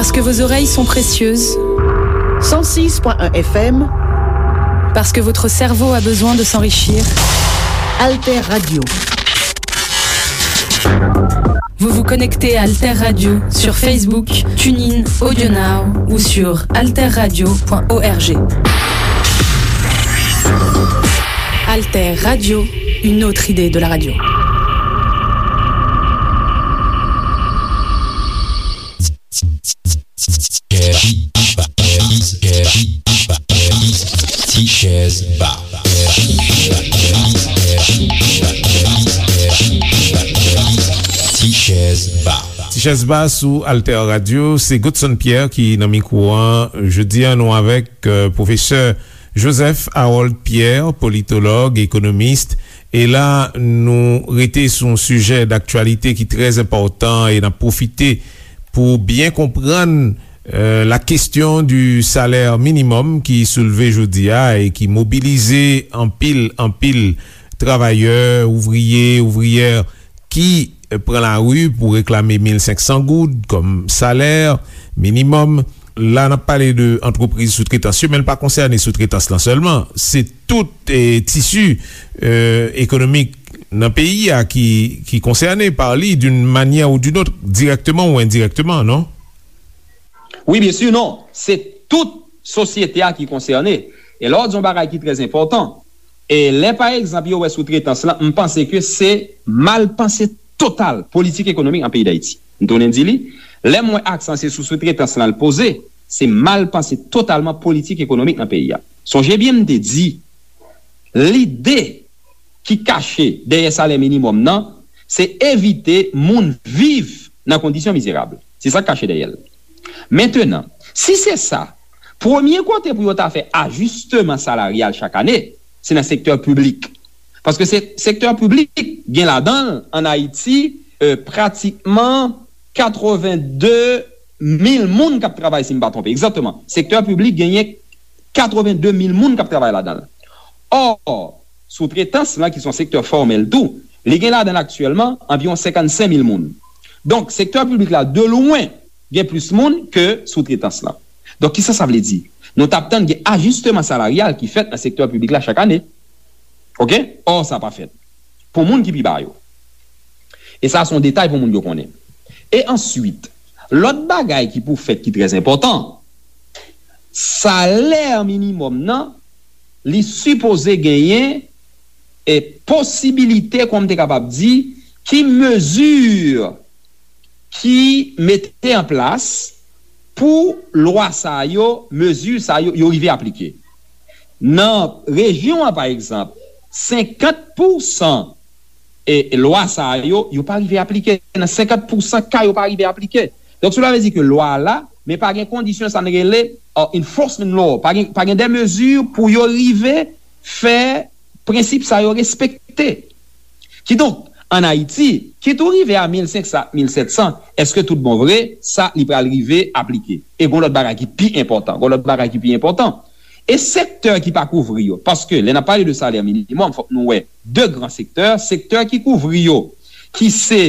Parce que vos oreilles sont précieuses. Cent six point un F M. Parce que votre cerveau a besoin de s'enrichir. Alter Radio. Vous vous connectez à Alter Radio sur Facebook, TuneIn, AudioNow ou sur alterradio point org. Alter Radio, une autre idée de la radio. Ti chèz ba. Ti chèz ba. Ti chèz ba sou Alter Radio, se Godson Pierre ki nan mikwo an. Jodi a, nou avèk, euh, pwofesè Joseph Harold Pierre, politològ, ekonomis. E la, nou rete sou yon sijè daktyalite ki trè enpòtan e n ap pwofite pou byen konprann, euh, la question du salaire minimum ki soulve jodi a e ki mobilize anpil, anpil travayè, ouvriye, ouvriyè ki, euh, pran lari pou reklame mil senk san goud kòm salè minimòm. La, n ap pale de antrepriz soutretans yo, men l pa konsène soutretans lan sèlman. Se tout, eh, tisi, euh, ekonomik nan peyi a ki, ki konsène pa li d'une manière ou d'une autre, directement ou indirectement, non? Wi, byen si, non. Se tout sosyete a ki konsène. E lè w di yon bagay ki trè enpòtan, e lè, pa egzanp, yo wè soutretans lan, m panse ke se mal panse total politik ekonomik nan peyi Dayiti. M tounen di li, lè m wè aksan se sou soutretans lan l poze, se mal panse totalman politik ekonomik nan peyi a. Sonje byen m te di, lide ki kache dèyè salè minimòm nan, se evite moun viv nan kondisyon mizerab. Se sa k kache dèyè l. Mentenan, si se sa, premye kote pou yo ta fè ajisteman salaryal chak ane, se nan sektè piblik. Paske se, sektè piblik gen ladan l, ann Ayiti, euh, pratikman katreven de mil moun k ap travay, si m pa twonpe. Egzakteman. Sektè piblik genyen katreven de mil moun k ap travay ladan l. Ò, soutretans lan, ki se yon sektè fòmèl tou, li gen ladan l aktyèlman anviwon senkannsenk mil moun. Donk, sektè piblik la, de lwen, gen plis moun ke soutretans lan. Donk, kisa sa vle di? Nou t ap tann gen ajisteman salaryal ki fèt nan sektè piblik la chak ane. Oke? Ò, sa pa fèt. Pou moun ki pi ba yo. E sa, se yon detay pou moun yo konnen. E answit, lòt bagay ki pou fèt ki trè enpòtan, salè minimòm nan, li sipoze genyen e posibilite, kòman m te kapab di, ki mezi ki mete an plas pou lwa sa yo, mezi sa yo, yo rive aplike. Nan rejyon an, pa egzanp, senkant pousan e lwa sa yo, yo pa rive aplike. Nan senkant pousan ka, yo pa rive aplike. Donk, sela vle di ke lwa a la, men pa gen kondisyon sa n rele, uh, enforcement law. Pa gen, pa gen de mezi pou yo rive fè prensip sa yo respekte. Kidonk, ann Ayiti, kit ou rive a mil senk san, mil sèt san, èske tout bon vre, sa li pral rive aplike? E gon lòt bagay ki pi enpòtan, gon lòt bagay ki pi enpòtan. E sektè ki pa kouvri yo, paske lè n ap pale de salè minimòm, fòk nou wè de gran sektè, sektè ki kouvri yo, ki se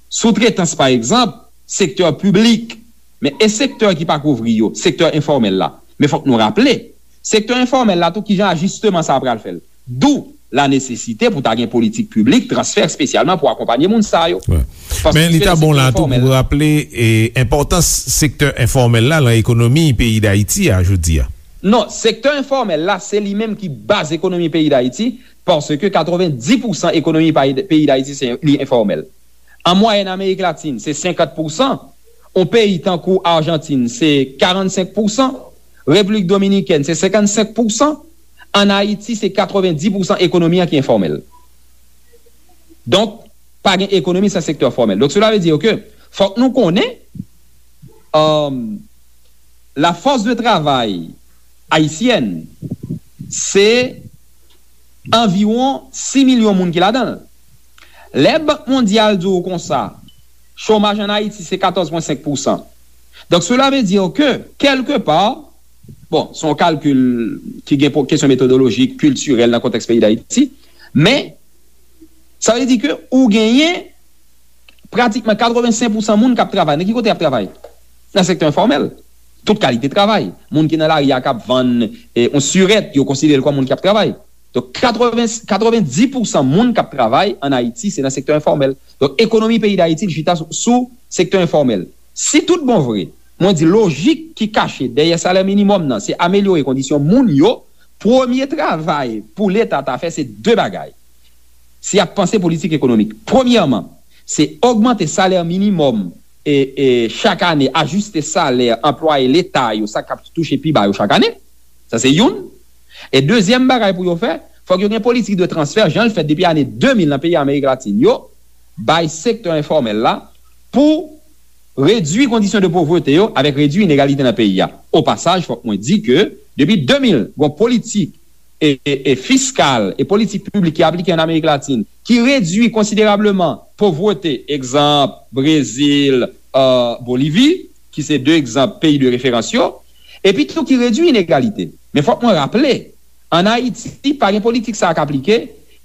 soutretans, pa egzanp, sektè piblik, men e sektè ki pa kouvri yo, sektè enfòmèl la. Men fòk nou raple, sektè enfòmèl la tou, kijan ajisteman sa a pral fè l. Dou la nesesite pou ta gen politik piblik, transfè espesyalman pou akonpanye moun sa yo. Paske sektè enfòmèl la. Men li ta bon la tou pou raple, e, enpòtans sektè enfòmèl la nan ekonomi peyi Dayiti a jodi a. Non, sektè enfòmèl la, se li menm ki baz ekonomi peyi Dayiti, paske katrevenndis pousan ekonomi peyi, peyi Dayiti, se, li enfòmèl. An mwayèn, Amerik Latin, se senkant pousan. Yon peyi tankou Ajantin, se karannsenk pousan. Repiblik Dominikèn, se senkannsenk pousan. Ann Ayiti, se katrevenndis pousan ekonomi an ki enfòmèl. Donk, pa gen ekonomi san sektè fòmèl. Donk, sela vle di ke fòk nou konnen, um, la force de travail haïtienne, se anviwon sis milyon moun ki ladan l. Lè Bank Mondyal di w konsa, chomaj ann Ayiti se katòz pwen senk pousan. Donk, sela vle di ke, kèlkepa, bon, se yon kalkil ki gen po-, kesyon metodolojik, kiltirèl nan kontèks peyi Dayiti, men sa vle di ke ou genyen pratikman katrevensenk pousan moun k ap travay. Nan ki kote y ap travay? nan sektè enfòmèl. Tout kalite travay. Moun ki nan lari a k ap vann eh, yon sirèt, yo konsidere l kòm moun k ap travay. Donk, katreven, katrevendis pousan moun k ap travay ann Ayiti, se nan sektè enfòmèl. Donk, ekonomi peyi Dayiti, li chita sou, sou sektè enfòmèl. Si tout bon vre, mwen di lojik ki kache dèyè salè minimòm nan, se amelyore kondisyon moun yo, premye travay pou Leta ta fè, se de bagay. Si y ap panse politik ekonomik, premyèman, se ogmante salè minimòm e, e chak ane, ajiste salè anplwaye Leta yo, sa k ap touche pi ba yo chak ane. Sa se youn. E dezyèm bagay pou yo fè, fòk yo gen politik de transfè, jan l fèt depi ane de mil nan peyi Amerik Latin yo, bay sektè enfòmèl la pou redui kondisyon de povrete yo avèk redui inegalite nan peyi a. O pasaj, fòk mwen di ke depi de mil, gon politik e, e, e fiskal e politik piblik ki aplike ann Amerik Latin ki redui konsiderableman povrete, egzanp, Brezil, euh, Bolivi, ki se de egzanp peyi de referans yo, epi tou ki redui inegalite. Men fòk mwen raple, ann Ayiti, pa gen politik sa a k aplike,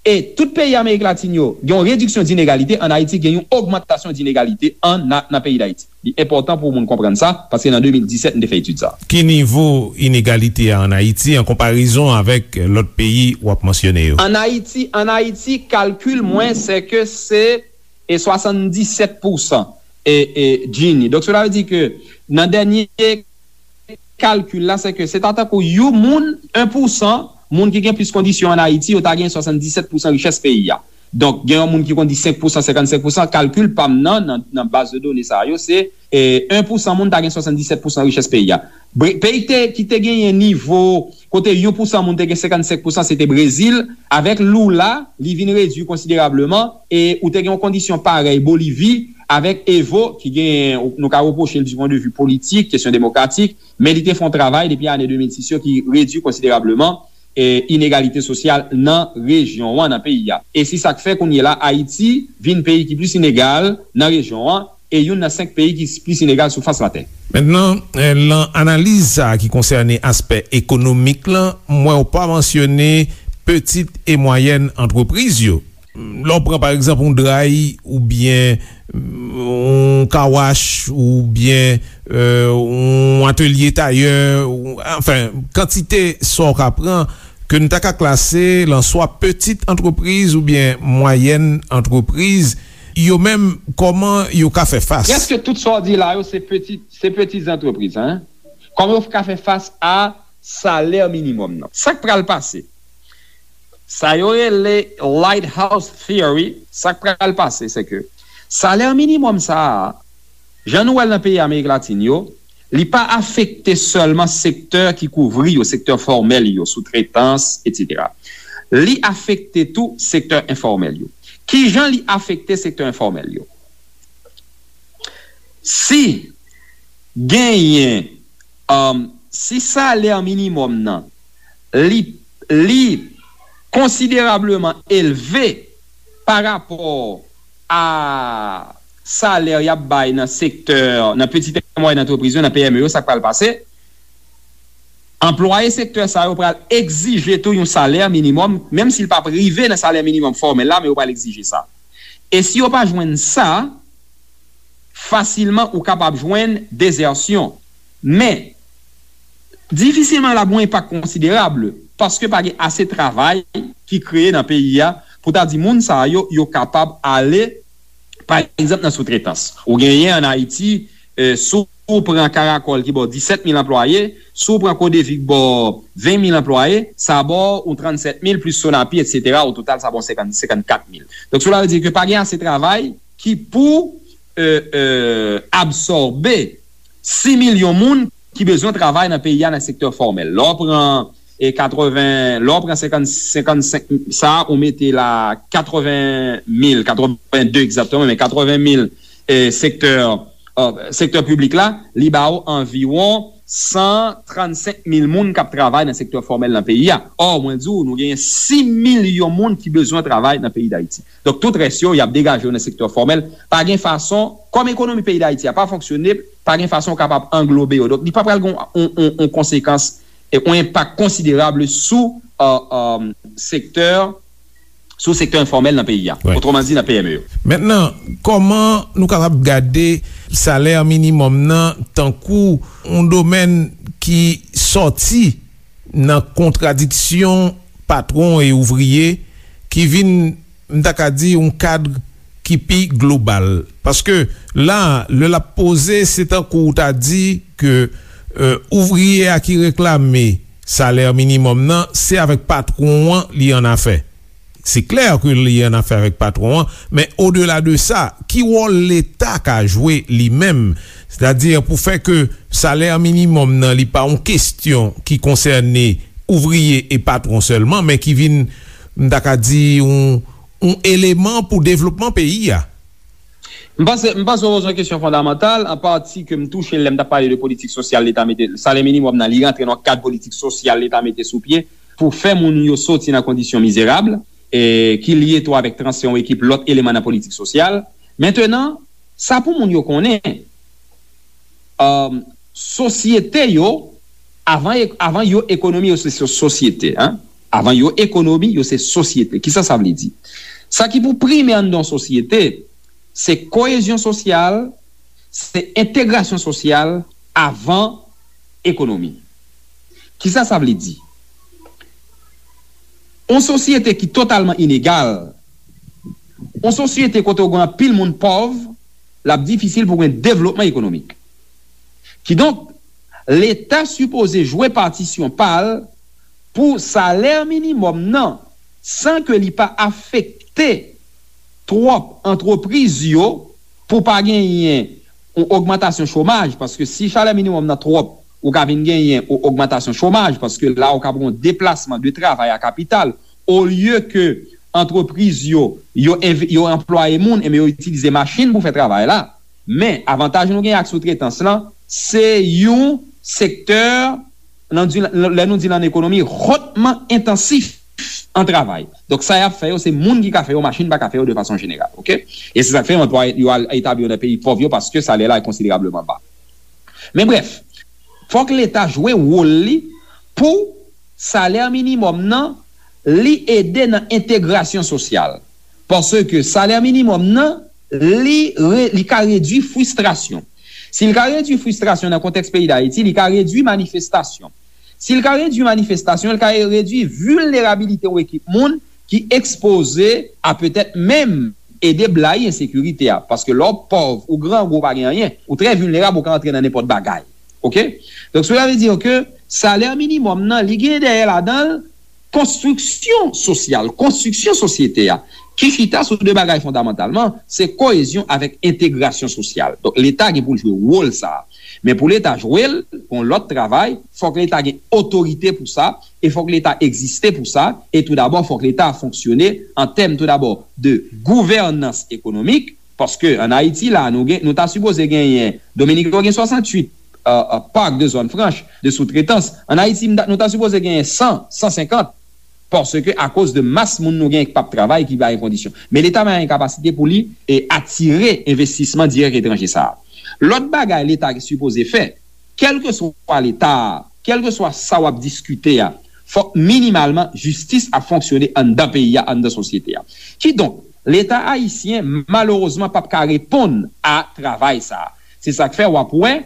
e tout peyi Amerik Latin yo gen yon rediksyon dinegalite, ann Ayiti gen yon ogmantasyon dinegalite an, nan, nan peyi Dayiti. Li enpòtan pou moun konprann sa, paske nan de mil disèt, m te fè etid sa a. Ki nivo inegalite a ann Ayiti an konparezon avèk lòt peyi w ap mansyone yo? Ann Ayiti, ann Ayiti, kalkil mwen, se ke se e swasanndisèt pousan e, e, Gini. Donk, cela veut dire ke nan dènye kalkil la, se ke se ta tankou yon moun, en pousan, moun ki gen plis kondisyon ann Ayiti, yo ta gen swasanndisèt pousan richès peyi a. Donk, gen yon moun ki kondi senk pousan, senkannsenk pousan, kalkil pa m nan, nan, nan baz de done sa yo, se, e, en pousan moun ta gen swasanndisèt pousan richès peyi a. Bre- Peyi ki te, ki te genyen nivo kote yon pousan moun te gen senkannsenk pousan, se te Brezil. Avèk Lula, li vin redui konsiderableman, e ou te gen yon kondisyon parèy Bolivi, avèk Evo, ki gen, nou ka repwoche l du point de vue politik, kesyon demokratik, men li te fè yon travay depi ane de mil sis yo ki redui konsiderableman e, inegalite sosyal nan rejyon an, nan peyi a. E se sa k fè kounye la Ayiti vin peyi ki plis inegal nan rejyon an, e youn nan senk peyi ki plis inegal sou fas latè. Mentnan, eh, lan analiz sa a ki konsène aspè ekonomik lan, m wè w pa mansyone pitit e mwayèn antrepriz yo. Lè w pran, pa egzanp, yon dray oubyen yon kawach oubyen eh, yon atelye tayè, ou- anfen, kantite sa w ka pran ke n ta ka klase lan swa pitit antrepriz oubyen mwayèn antrepriz, yo menm, kòman yo ka fè fas? Prèske tout sa w di la yo, se peti, se peti antrepriz, en. Kòman yo ka fè fas a salè minimòm nan? Sa k pral pase? Sa yo rele Lighthouse Theory, sa k pral pase, se ke salè minimòm sa a, jan nou wè l nan peyi Amerik Latin yo, li pa afekte sèlman sektè ki kouvri yo, sektè fòmèl yo, soutretans, etsetera. Li afekte tou sektè enfòmèl yo. Kijan li afekte sektè enfòmèl yo? Si genyen, um, si salè minimòm nan, li, li konsiderableman elve pa rapò a salè y ap bay nan sektè, nan pitit e mwayèn antrepriz yo, nan P M E yo, sa k pral pase? Anplwaye sektè sa yo pral egzije tou yon salè minimòm, menm si l p ap rive nan salè minimòm fòmèl la, men yo pral egzije sa. E si yo pa jwenn sa, fasilman ou kapab jwenn dezèsyon. Men, difisilman l ap gen yon enpak konsiderab, paske pa gen ase travay ki kreye nan peyi a pou ta di moun sa yo, yo kapab ale, pa egzanp, nan soutretans. Ou genyen ann Ayiti, eh, si w pran Karakòl ki ba w disèt mil anplwaye, si w pran Kodevi ki ba w ven mil anplwaye, sa ba w yon trannsèt mil plis Sonapi, etsetera, o total, sa ba w senkant, senkannkat mil. Donk, cela veut dire ke pa gen ase travay ki pou, eh, eh, absòbe sis milyon moun ki bezwen travay nan peyi a nan sektè fòmèl. Lè w pran e katreven, lè w pran senkant, senkannsenk sa a, ou mete la katreven mil, katreven de egzakteman, men katreven mil e, sektè, e, sektè piblik la, li ba w anviwon san trannsenk mil moun k ap travay nan sektè fòmèl nan peyi a. Ò, mwen di w, nou genyen sis milyon moun ki bezwen travay nan peyi Dayiti. Donk, tout rès yo, y ap degaje yo nan sektè fòmèl. Pa gen fason, kòm ekonomi peyi Dayiti a pa fonksyone, pa gen fason w kapab anglobe yo. Donk, li pa pral gen yon, yon, yon, yon konsekans, e, yon enpak konsiderab sou, e, e, sektè, sou sektè enfòmèl nan peyi a. Wi. Otreman di, nan P M E yo. Mentnan, kòman nou kapab gade salè minimòm nan tankou yon domèn ki sòti nan kontradiksyon patwon e ouvriye, ki vin, m ta ka di, yon kad ki pi global? Paske la, lè l ap poze, se tankou w ta di ke, e, ouvriye a ki reklame salè minimòm nan, se avèk patwon an li annafè. Se klè ke li annafè avèk patwon an, men odela de sa, ki wòl Leta ka jwe li menm? Sètadi pou fè ke salè minimòm nan, li pa yon kestyon ki konsène ouvriye e patwon sèlman, men ki vin, m ta ka di, yon, yon eleman pou devlopman peyi a. M panse, m panse w poze yon kesyon fondamantal, an pati ke m touche lè m t ap pale de politik sosyal Leta mete, salè minimòm nan, li rantre nan kad politik sosyal Leta mete sou pye pou fè moun yo soti nan kondisyon mizerab, e ki lye tou avèk transfè yon ekip lòt eleman nan politik sosyal. Mentnan, sa pou moun yo konnen, um, sosyete yo, avan, avan yo ekonomi, yo se so-, sosyete, en. Avan yo ekonomi, yo se sosyete. Kisa sa vle di? Sa ki pou prime anndan yon sosyete, se koyezyon sosyal, se entegrasyon sosyal avan ekonomi. Kisa sa vle di? Yon sosyete ki totalman inegal, yon sosyete kote w gen anpil moun pòv, l ap difisil pou gen devlopman ekonomik. Kidonk, Leta sipoze jwe patisyon pa l pou salè minimòm nan, san ke li pa afekte twòp antrepriz yo, pou pa genyen yon ogmantasyon chomaj, paske si salè minimòm nan twòp, ou ka vin genyen yon ogmantasyon chomaj, paske la ou ka pran yon deplasman de travay a kapital, olye ke antrepriz yo, yo env-, yo anplwaye moun, enben yo itilize machin pou fè travay la. Men, avantaj nou gen ak soutretans lan, se yon sektè, nan di, lè nou di l an ekonomi, hotman entansif an travay. Donk, sa y ap fè yo, se moun ki ka fè yo, machin pa ka fè yo de fason jeneral, oke? E se sa k fè yo anplwaye, yo al etabli yo nan peyi pòv yo, paske salè la konsiderableman ba. Men brèf, fòk Leta jwe wòl li pou salè minimòm nan, li ede nan entegrasyon sosyal. Paske salè minimòm nan, li re-, li ka redui fristrasyon. Si l ka redui fristrasyon nan kontèks peyi Dayiti, li ka redui manifestasyon. Si l ka redui manifestasyon, l ka redui vilnerabilite yon ekip moun ki ekspoze a petèt menm ede blayi ensekirite a. Paske lè w pòv, ou grangou, ou pa gen anyen, ou trè vilnerab, ou ka antre nan nenpòt bagay. Oke? Donk, cela veut dire que salè minimòm nan, li gen dèyè ladan l konstriksyon sosyal, konstriksyon sosyete a, ki chita sou de bagay fondamantalman, se koyezyon avèk entegrasyon sosyal. Donk, Leta gen pou l jwe wòl sa a. Men pou Leta jwe l, gon lòt travay, fòk Leta gen otorite pou sa, e fòk Leta egziste pou sa, e toudabò, fòk Leta fonksyone an tèm toudabò de gouvènans ekonomik, paske ann Ayiti la, nou gen, nou ta sipoze genyen, Dominik yo gen swasanntuit, euh, euh, park de zòn franch, de soutretans. Ann Ayiti, m ta, nou ta sipoze genyen san, san senkant, paske akoz de mas moun nou gen k p ap travay, ki pa gen kondisyon. Men Leta pa gen kapasite pou li, e, atire envestisman dirèk etranje sa a. Lòt bagay Leta sipoze fè, kèlkeswa Leta a, kèlkeswa sa w ap diskite a, fòk minimalman jistis ap fonksyone anndan peyi a, anndan sosyete a. Kidonk, Leta ayisyen, malerezman, p ap ka reponn a travay sa a. Se sa k fè w ap wè,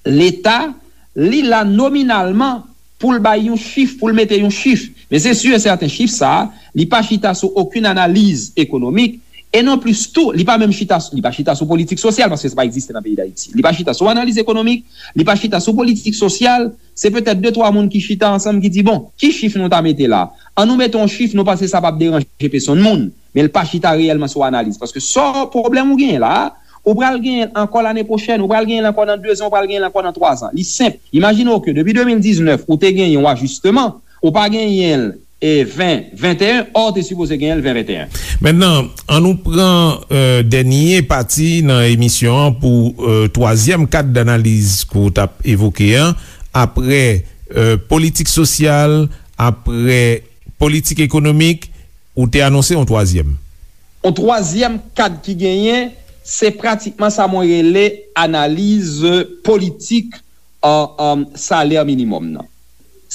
Leta, li la nominalman pou l bay yon chif, pou l mete yon chif. Men se si e sèten, chif sa a, li pa chita sou okenn analiz ekonomik, e non plis tou, li pa menm chita, li pa chita sou politik sosyal, paske sa pa egziste nan peyi Dayiti. Li pa chita sou analiz ekonomik, li pa chita sou politik sosyal, se petèt de twa moun ki chita ansanm ki di, bon, ki chif nou ta mete la? An nou mete yon chif, nou panse sa p ap deranje pèsonn moun, men l pa chita reyèlman sou analiz. Paske sa pwoblèm ou genyen la a, ou pral genyen l ankò lane pwochèn, ou pral genyen l ankò nan dezan, ou pral genyen l ankò nan twazan. Li senp. Imajine w ke depi de mil diznèf, ou te genyen yon ajisteman, ou pa genyen l, e, ven venteyen, ò, ou te sipoze genyen l ven venteyen. Mentnan, an nou pran, e, dènye pati nan emisyon an pou, e, twazyèm kad danaliz ke w t ap evoke an, apre, e, politik sosyal, apre politik ekonomik, ou te anonse yon twazyèm. Yon twazyèm kad ki genyen, se pratikman sa mwen rele analiz politik, e, e, salè minimòm nan.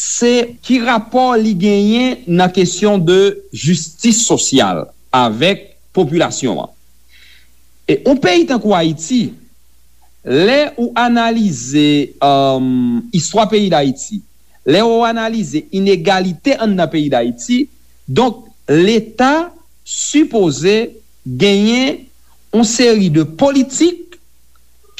se ki rapò li genyen nan kesyon de jistis sosyal avèk popilasyon an. E yon peyi tankou Ayiti, lè ou analize, um, istwa peyi Dayiti, lè ou analize inegalite anndan peyi Dayiti, donk, Leta sipoze genyen yon seri de politik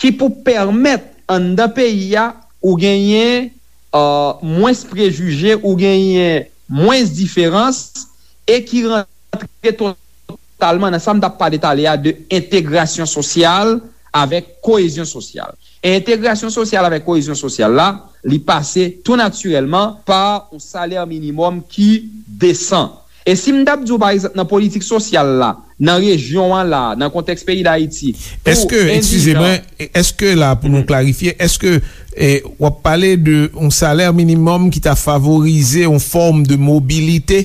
ki pou pèmèt anndan peyi a ou genyen, uh, mwens prejije, ou genyen mwens diferans, e ki rantre totalman nan sa m t ap pale talè a de entegrasyon sosyal avèk koyezyon sosyal. E entegrasyon sosyal avèk koyezyon sosyal la, li pase tou natirèlman pa yon salè minimòm ki desan. E si m t ap di w, pa egzanp, nan politik sosyal la, nan rejyon an la, nan kontèks peyi Dayiti, pou Èske, eskize endijan mwen, èske la, pou nou klarifye, èske, eh, w ap pale de yon salè minimòm ki ta favorize yon fòm de mobilite?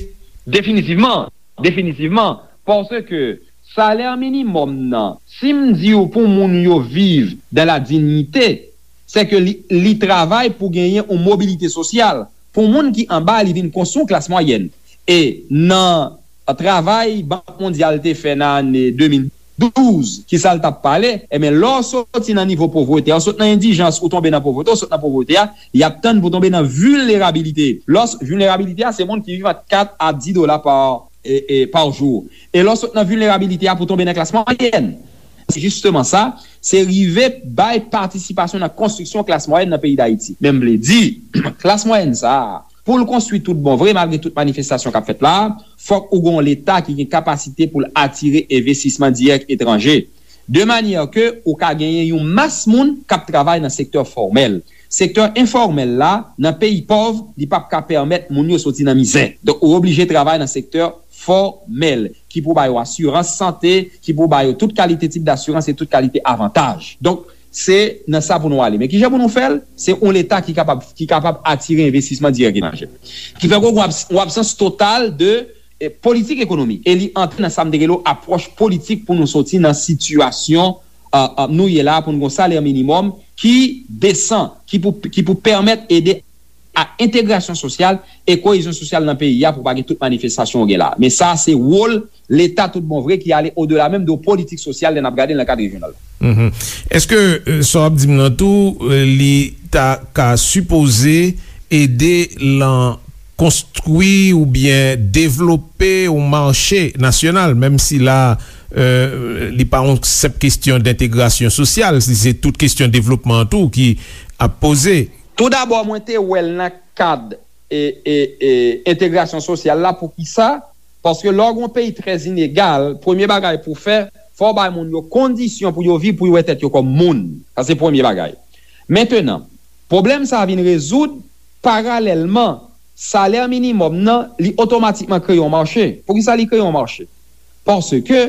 Definitivman, definitivman, paske salè minimòm nan, si m di w pou moun yo viv dans la dignité, se ke li, li travay pou genyen yon mobilite sosyal. Pou moun ki anba, li vin konstwi yon klas mwayèn. E nan travay Bank Mondyal te fè nan ane de mil douz, ki sa l t ap pale, ebyen, lè w soti nan nivo povrete, ou sot nan endijans, ou tonbe nan povrete, ou sot nan povrete a, y ap tann pou tonbe nan vilnerabilite. Lè w s-, vilnerabilite a, se moun ki viv ant kat a dis dola pa, e, e, pa jou. E lè w sot nan vilnerabilite a pou tonbe nan klas mwayèn. Se jisteman sa, se rive bay patisipasyon nan konstriksyon klas mwayèn nan peyi Dayiti. Men m vle di, klas mwayèn sa a, pou l konstwi tout bon vre, malgre tout manifestasyon k ap fèt la, fòk ou gen yon Leta ki gen kapasite pou l atire envestisman dirèk etranje, de manyè ke ou ka genyen yon mas moun k ap travay nan sektè fòmèl. Sektè enfòmèl la, nan peyi pòv, li p ap ka pèmèt moun yo soti nan mizè. Donk, ou oblije travay nan sektè fòmèl, ki pou ba yo asirans sante, ki pou ba yo tout kalite tip dasirans e tout kalite avantaj. Donk, se nan sa pou nou ale. Men kijan pou nou fè l? Se yon Leta ki kapab, ki kapab atire envestisman dirèk etranje. Ki fè ke w gen yon abs-, yon absans total de, eh, politik ekonomik. E li antre nan sa m te rele apwòch politik pou nou soti nan sitiyasyon, eh, eh, nou ye la, pou nou gen yon salè minimòm ki desan, ki pou, ki pou pèmèt ede a entegrasyon sosyal e koyezyon sosyal nan peyi a pou pa gen tout manifestasyon ou gen la. Men sa, se wòl Leta tout bon vre ki ale odela menm de politik sosyal lè n ap gade l nan kad rejyonal. Mhm. Èske, euh, sa w ap di m nan tou, euh, li ta ka sipoze ede lan konstwi oubyen devlope yon mache nasyonal, menm si la, euh, li pa yon senp kesyon dentegrasyon sosyal, si se tout kesyon devlopman an tou ki ap poze? Toudabò, mwen te wè l nan kad, e, e, e, entegrasyon sosyal la. Poukisa? Paske lè w gen yon peyi trè inegal, premye bagay pou w fè, fò w bay moun yo kondisyon pou yo viv, pou yo wè tèt yo kòm moun. Sa se premye bagay. Mentenan, pwoblèm sa a vin rezoud paralèlman salè minimòm nan, li otomatikman kreye yon mache. Poukisa li kreye yon mache? Paske,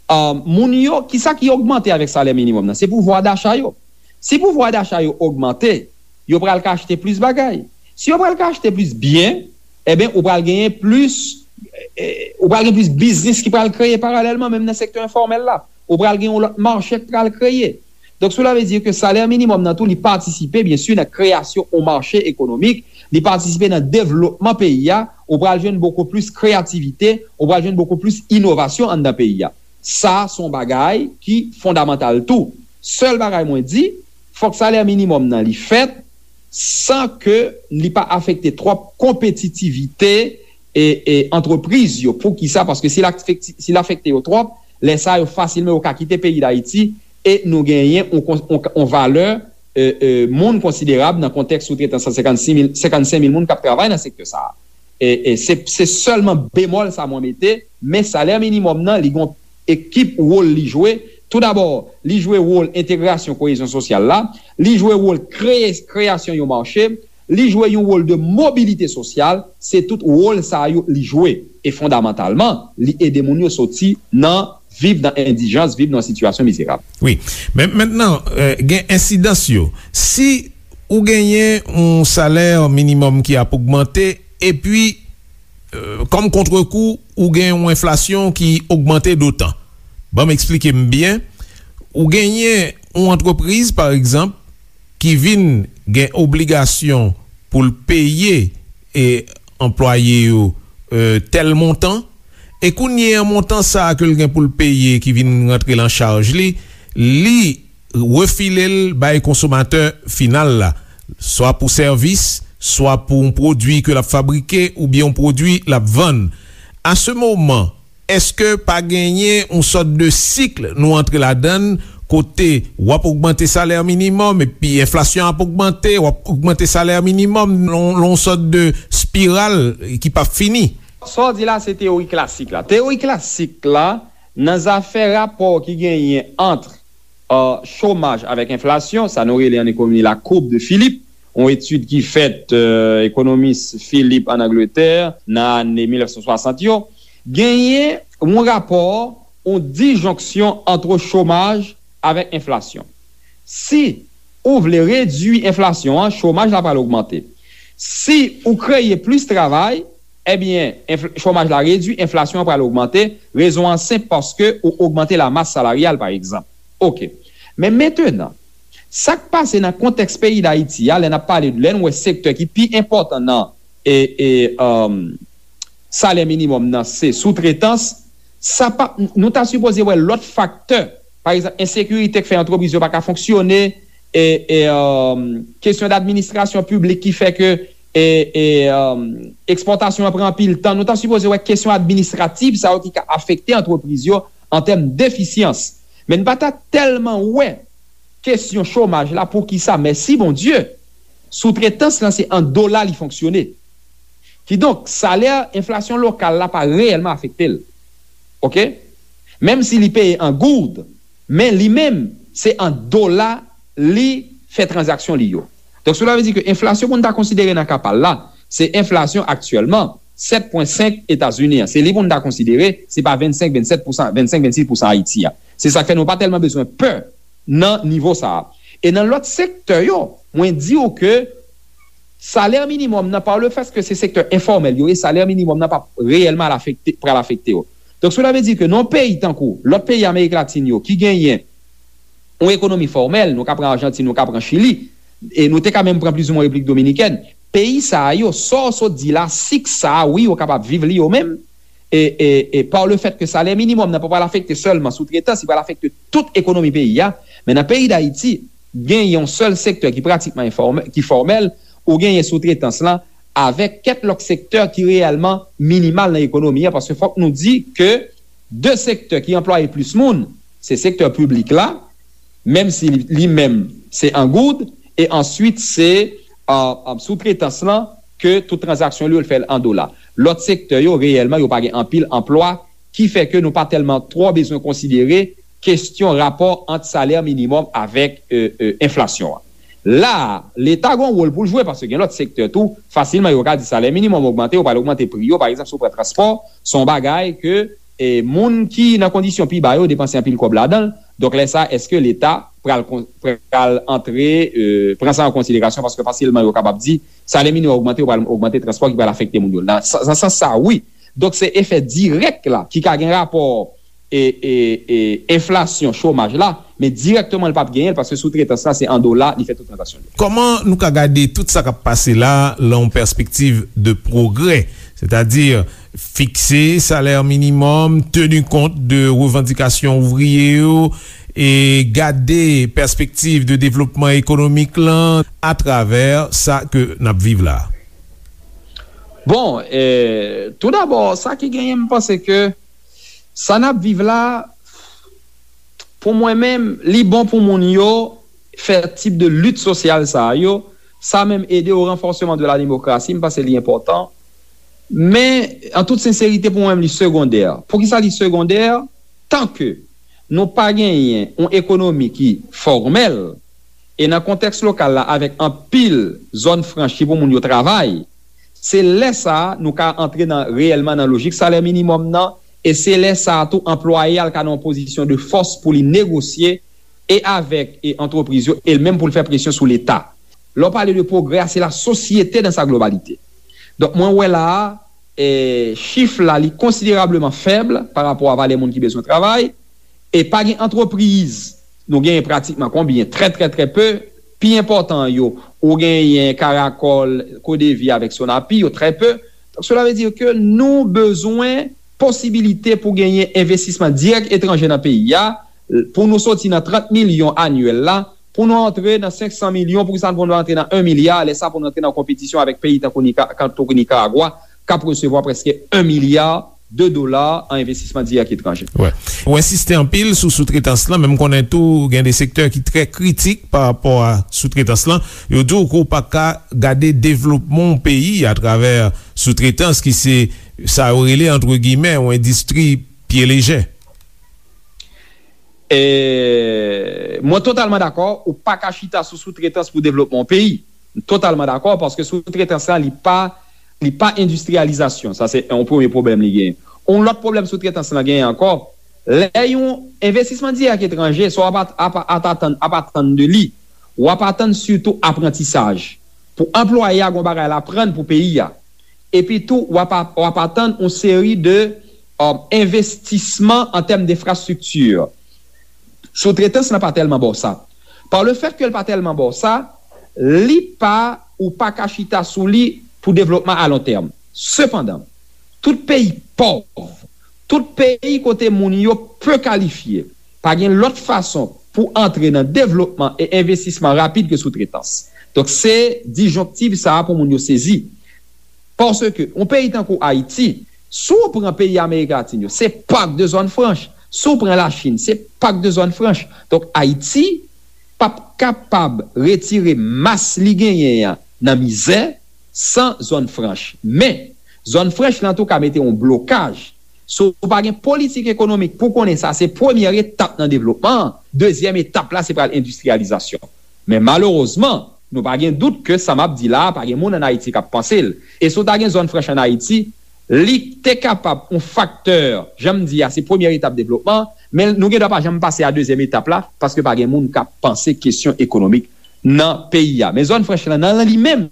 ah, moun yo, kisa ki ogmante avèk salè minimòm nan? Se pouvwa dacha yo. Si pouvwa dacha yo ogmante, yo pral ka achte plis bagay. Si yo pral ka achte plis byen, ebyen, ou pral genyen plis, eh, ou pral gen plis biznis ki pral kreye paralèlman, menm nan sektè enfòmèl la. Ou pral gen yon lòt mache k pral kreye. Donk, cela veut dire ke salè minimòm nan tou, li patisipe, byen si, nan kreyasyon yon mache ekonomik, li patisipe nan devlopman peyi a, ou pral jwenn bokou plis kreyativite, ou pral jwenn bokou plis inovasyon anndan peyi a. Sa, se yon bagay ki fondamantal tou. Sèl bagay mwen di, fòk salè minimòm nan li fèt san ke li pa afekte twòp konpetitivite e, e antrepriz yo. Poukisa? Paske si l afekte, si l afekte yo twòp, lè sa a yo fasilman yo ka kite peyi Dayiti e nou genyen yon, yon, yon valè, e, e, moun konsiderab nan kontèks soutretans san senkannsis mil, senkannsenk mil moun k ap travay nan sektè sa a. E, e se, se sèlman bemòl sa mwen mete, men salè minimòm nan, li gon ekip wòl li jwe. Toudabò, li jwe wòl entegrasyon koyezyon sosyal la, li jwe wòl kreye, kreyasyon yon mache, li jwe yon wòl de mobilite sosyal, se tout wòl sa yo li jwe. E fondamantalman, li ede moun yo soti nan viv nan endijans, viv nan sitiyasyon mizerab. Wi. Men mentnan, eh, gen ensidans yo. Si ou genyen yon salè minimòm ki ap ogmante, epi, eh, kòm kontrekou, ou gen yon enflasyon ki ogmante dotan. Ban m eksplike m byen. Ou genyen yon antrepriz, pa egzanp, ki vin gen obligasyon pou l peye e anplwaye yo e, tèl montan, e kounye a montan sa a ke l gen pou l peye ki vin rantre nan chaj li, li refile l bay konsomatè final la, swa pou sèvis, swa pou yon pwodui ke l ap fabrike oubyen yon pwodui l ap vann. A se moman, èske pa genyen yon sòt de sik nou antre ladan l, kote w ap ogmante salè minimòm, epi enflasyon ap ogmante, w ap ogmante salè minimòm, lon, lon sòt de spiral ki p ap fini? Sa w di la, se teyori klasik la. Teyori klasik la, nan zafè rapò ki genyen ant chomaj avèk enflasyon, sa nou rele an ekonomi la courbe de Philip, yon etid ki fèt ekonomis Philip ann Angletè nan ane mil nèf san swasant yo, genyen yon rapò, yon dijonksyon ant chomaj avèk enflasyon. Si ou vle redui enflasyon an, chomaj la pral ogmante. Si ou kreye plis travay, ebyen, chomaj la redui, enflasyon an pral ogmante. Rezon an senp, paske ou ogmante lamas salaryal, pa egzanp. Oke. Men mentenan, sa k pase nan kontèks peyi Dayiti a, lè n ap pale, lè n wè sektè ki pi enpòtan nan e, e, salè minimòm nan se soutretans, sa pa, nou ta sipoze wè lòt faktè. Pa egzanp, ensekirite k fè antrepriz yo pa ka fonksyone, e, e, kesyon dadministrasyon piblik ki fè ke e, e, ekspòtasyon an pran anpil tan. Nou ta sipoze wè kesyon administrativ sa yo ki ka afekte antrepriz yo an tèm defisyans. Men n pa ta tèlman wè kesyon chomaj la, poukisa, mèsi Bondye, soutretans lan se an dola li fonksyone. Kidonk, salè enflasyon lokal la pa reyèlman afekte l. Oke? Menm si li peye an goud, men li menm, se an dola li fè tranzaksyon li yo. Donk, cela veut dire ke enflasyon pou n ta konsidere nan ka pa l la, se enflasyon aktyèlman sèt pwen senk Etazini an. Se li pou n ta konsidere, se pa vennsenk, vennsèt pousan, vennsenk, vennsis pousan Ayiti a. Se sa k fè nou pa tèlman bezwen pè nan nivo sa a. E nan lòt sektè yo, mwen di w ke salè minimòm nan, pa le fèt ke se sektè enfòmèl yo ye, salè minimòm nan p ap reyèlman al afekte, pral afekte yo. Donk, cela veut dire ke nan yon peyi tankou lòt peyi Amerik Latin yo ki genyen yon ekonomi fòmèl, nou ka pran Ajantin, nou ka pran Chili, e nou te ka menm pran plizoumwen Repiblik Dominikèn, peyi sa a yo, sa w sot di la, sik sa a, wi, yo kapab viv li yo menm, e, e, e pa le fèt ke salè minimòm nan pa pral afekte sèlman soutretans, li pral afekte tout ekonomi peyi a. Men nan peyi Dayiti, gen yon sèl sektè ki pratikman enfòmè-, ki fòmèl, ou genyen soutretans lan, avèk kèk lòt sektè ki reyèlman minimal nan ekonomi an, paske fòk nou di ke de sektè ki anplwaye plis moun, se sektè piblik la, menm si li, li menm se an goud, e answit se, a, a, soutretans lan, ke tout tranzaksyon li yo l fè l an dola. Lòt sektè yo, reyèlman, yo pa gen anpil anplwa, ki fè ke nou pa tèlman twò bezwen konsidere kesyon rapò ant salè minimòm avèk, e, e, enflasyon an. La a, Leta gen yon wòl pou l jwe, paske gen lòt sektè tou, fasilman yo ka di salè minimòm ogmante, yo pral ogmante pri yo, pa egzanp, si w pran transpò, se yon bagay ke, e, moun ki nan kondisyon pi ba yo depanse anpil kòb ladan l. Donk, lè sa a, èske Leta pral kon-, pral antre, e, pran sa an konsiderasyon, paske fasilman yo kapab di salè minimòm ogmante, yo pral ogmante transpò ki pral afekte moun yo. Nan sa-, nan sans sa, wi. Donk, se efè dirèk la ki ka gen rapò e, e, e enflasyon, chomaj la, men dirèkteman li p ap genyen l, paske soutretans la se an dola li fè tout tranzaksyon li. Kòman nou ka gade tout sa k ap pase la lan yon pèspektiv de pwogrè, sètadi fikse salè minimòm, teni kont de revandikasyon ouvriye yo, e gade pèspektiv de devlopman ekonomik lan atravè sa ke n ap viv la? Bon, e, tou dabò, sa ki genyen, m panse ke sa n ap viv la, pou mwen menm, li bon pou moun yo fè tip de lit sosyal sa a yo. Sa menm ede au renforcement de la démocratie, m panse li enpòtan. Men, an tout senserite, pou mwen menm, li segondè. Poukisa li segondè? Tanke nou pa genyen yon ekonomi ki fòmèl, e nan kontèks lokal la, avèk anpil zòn franch ki pou moun yo travay, se lè sa a nou ka antre nan, reyèlman nan lojik salè minimòm nan, e se lè sa a tou anplwaye a l ka nan yon pozisyon de fòs pou li negosye e avèk, e antrepriz yo, e l menm pou l fè presyon sou Leta. Lè w pale de pwogrè a, se la sosyete dans sa globalité. Donk, mwen wè la a, e, chif la, li konsiderableman fèb pa rapò a valè moun ki bezwen travay, e pa gen antrepriz, nou genyen pratikman konbyen? Trè, trè, trè pe. Pi enpòtan yo, ou genyen Caracol, Codevi avèk Sonapi, yo trè pe. Donk, cela veut dire que nou bezwen posibilite pou genyen envestisman dirèk etranje nan peyi a, pou nou soti nan trant milyon anyèl la, pou nou antre nan senk san milyon, pou sa pou nou antre nan en milya, lè sa pou nou antre nan konpetisyon avèk peyi tankou Nika-, tankou Nikaragwa, k ap resevwa prèske en milya de dola an envestisman dirèk etranje. Wè. Ou ensiste anpil sou soutretans lan, men m konnen tou gen de sektè ki trè kritik pa rapò a soutretans lan. Yo di w ke w pa ka gade devlopman yon peyi atravè soutretans ki se sa yo rele, antre gimè, yon endistri pye lejè. E, mwen totalman dakò, ou pa ka chita sou soutretans pou devlopman yon peyi. M totalman dakò, paske soutretans la, li pa, li pa endistriyalizasyon. Sa, se yon premye pwoblèm li genyen. Yon lòt pwoblèm soutretans lan genyen ankò, lè yon envestisman dirèk etranje, sa w ap, ap, ap atann, ap atann de li, w ap atann sitou aprantisaj. Pou anplwaye a, gon bagay l aprann pou peyi a. Epi tou, w ap, w ap atann yon seri de, euh, envestisman an tèm denfrastrikti. Soutretans lan pa tèlman ba w sa. Pa le fèt ke l pa tèlman ba w sa, li pa, ou pa ka chita sou li pou devlopman a lon tèm. Sepandan, tout peyi pòv, tout peyi kote moun yo pe kalifye, pa gen lòt fason pou antre nan devlopman e envestisman rapid ke soutretans. Donk, se dijonktiv sa a pou moun yo sezi. Paske yon peyi tankou Ayiti, si w pran peyi Amerik Latin yo, se pak de zòn franch. Si w pran Lachin, se pak de zòn franch. Donk, Ayiti p ap kapab retire mas li genyen an nan mizè san zòn franch. Men, zòn franch lan tou ka mete yon blokaj. Si w pa gen politik ekonomik pou konnen sa se premyè etap nan devlopman an, dezyèm etap la se pral endistriyalizasyon. Men malerezman, nou pa gen dout ke sa m ap di la a, pa gen moun ann Ayiti k ap panse l. E si w ta gen zòn franch ann Ayiti, li te kapab yon faktè, jan m di a, se premyè etap devlopman, men nou gen dwa pa janm pase a dezyèm etap la, paske pa gen moun k ap panse kesyon ekonomik nan peyi a. Men zòn franch lan, nan li menm,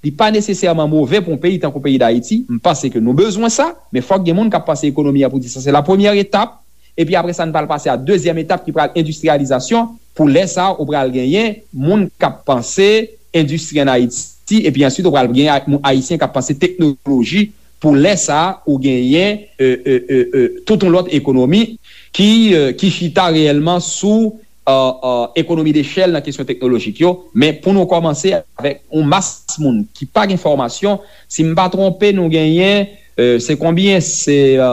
li pa nesesèman move pou yon peyi tankou peyi Dayiti. M panse ke nou bezwen sa, men fòk gen moun k ap panse ekonomi a pou di sa se la premyè etap, epi apre sa, n pral pase a dezyèm etap ki pral endistriyalizasyon. Pou lè sa a, ou pral genyen moun k ap panse endistri ann Ayiti, epi answit, ou pral genyen ay-, moun ayisyen k ap panse teknoloji. Pou lè sa a, ou genyen, e, e, e, e, tout yon lòt ekonomi ki, e, ki chita reyèlman sou, e, e, ekonomi dechèl nan kesyon teknolojik yo. Men pou nou kòmanse avèk yon mas moun ki pa gen fòmasyon, si m pa twonpe, nou genyen, e, se konbyen? Se, e,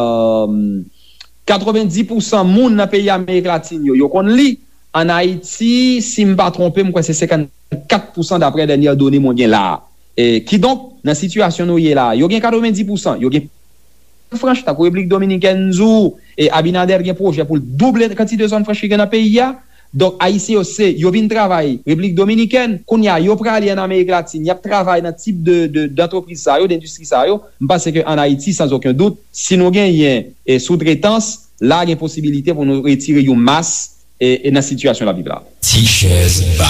katrevendis pousan moun nan peyi Amerik Latin yo, yo konn li. Ann Ayiti, si m pa twonpe, m kwè se senkannkat pousan daprè dènye done mwen gen la a. E, kidonk, nan sitiyasyon nou ye la a, yo gen katrevendis pousan, yo gen franch, tankou Repiblik Dominikèn, m di w, e Abinader gen pwojè pou l double kantite zòn franch ki gen nan peyi a. Donk, Ayisyen yo, se, yo vin travay Repiblik Dominikèn, kounye a, yo prale ann Amerik Latin, y ap travay nan tip de, de, dantrepriz sa yo, dendistri sa yo. M panse ke ann Ayiti, sans aucun doute, si nou genyen, e, soutretans, la gen posibilite pou nou retire yon mas, e, e nan sitiyasyon n ap viv la. Ti chèz ba.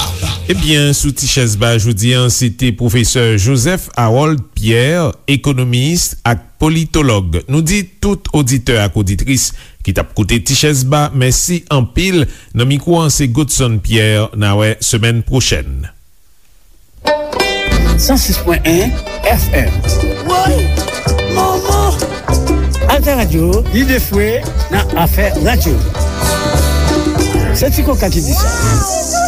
Ebyen, sou Ti chèz ba jodi a, se te pwofesè Joseph Harold Pierre, ekonomis ak politològ. Nou di tout oditè ak oditris ki t ap koute Ti chèz ba, mèsi anpil. Nan mikwo an, se Godson Pierre. N a wè semèn pwochèn. San sis pwen en F M. Woy! Manman! Alter Radio, lide fwe nan afè radyo. Se Ti Koka ki di sa.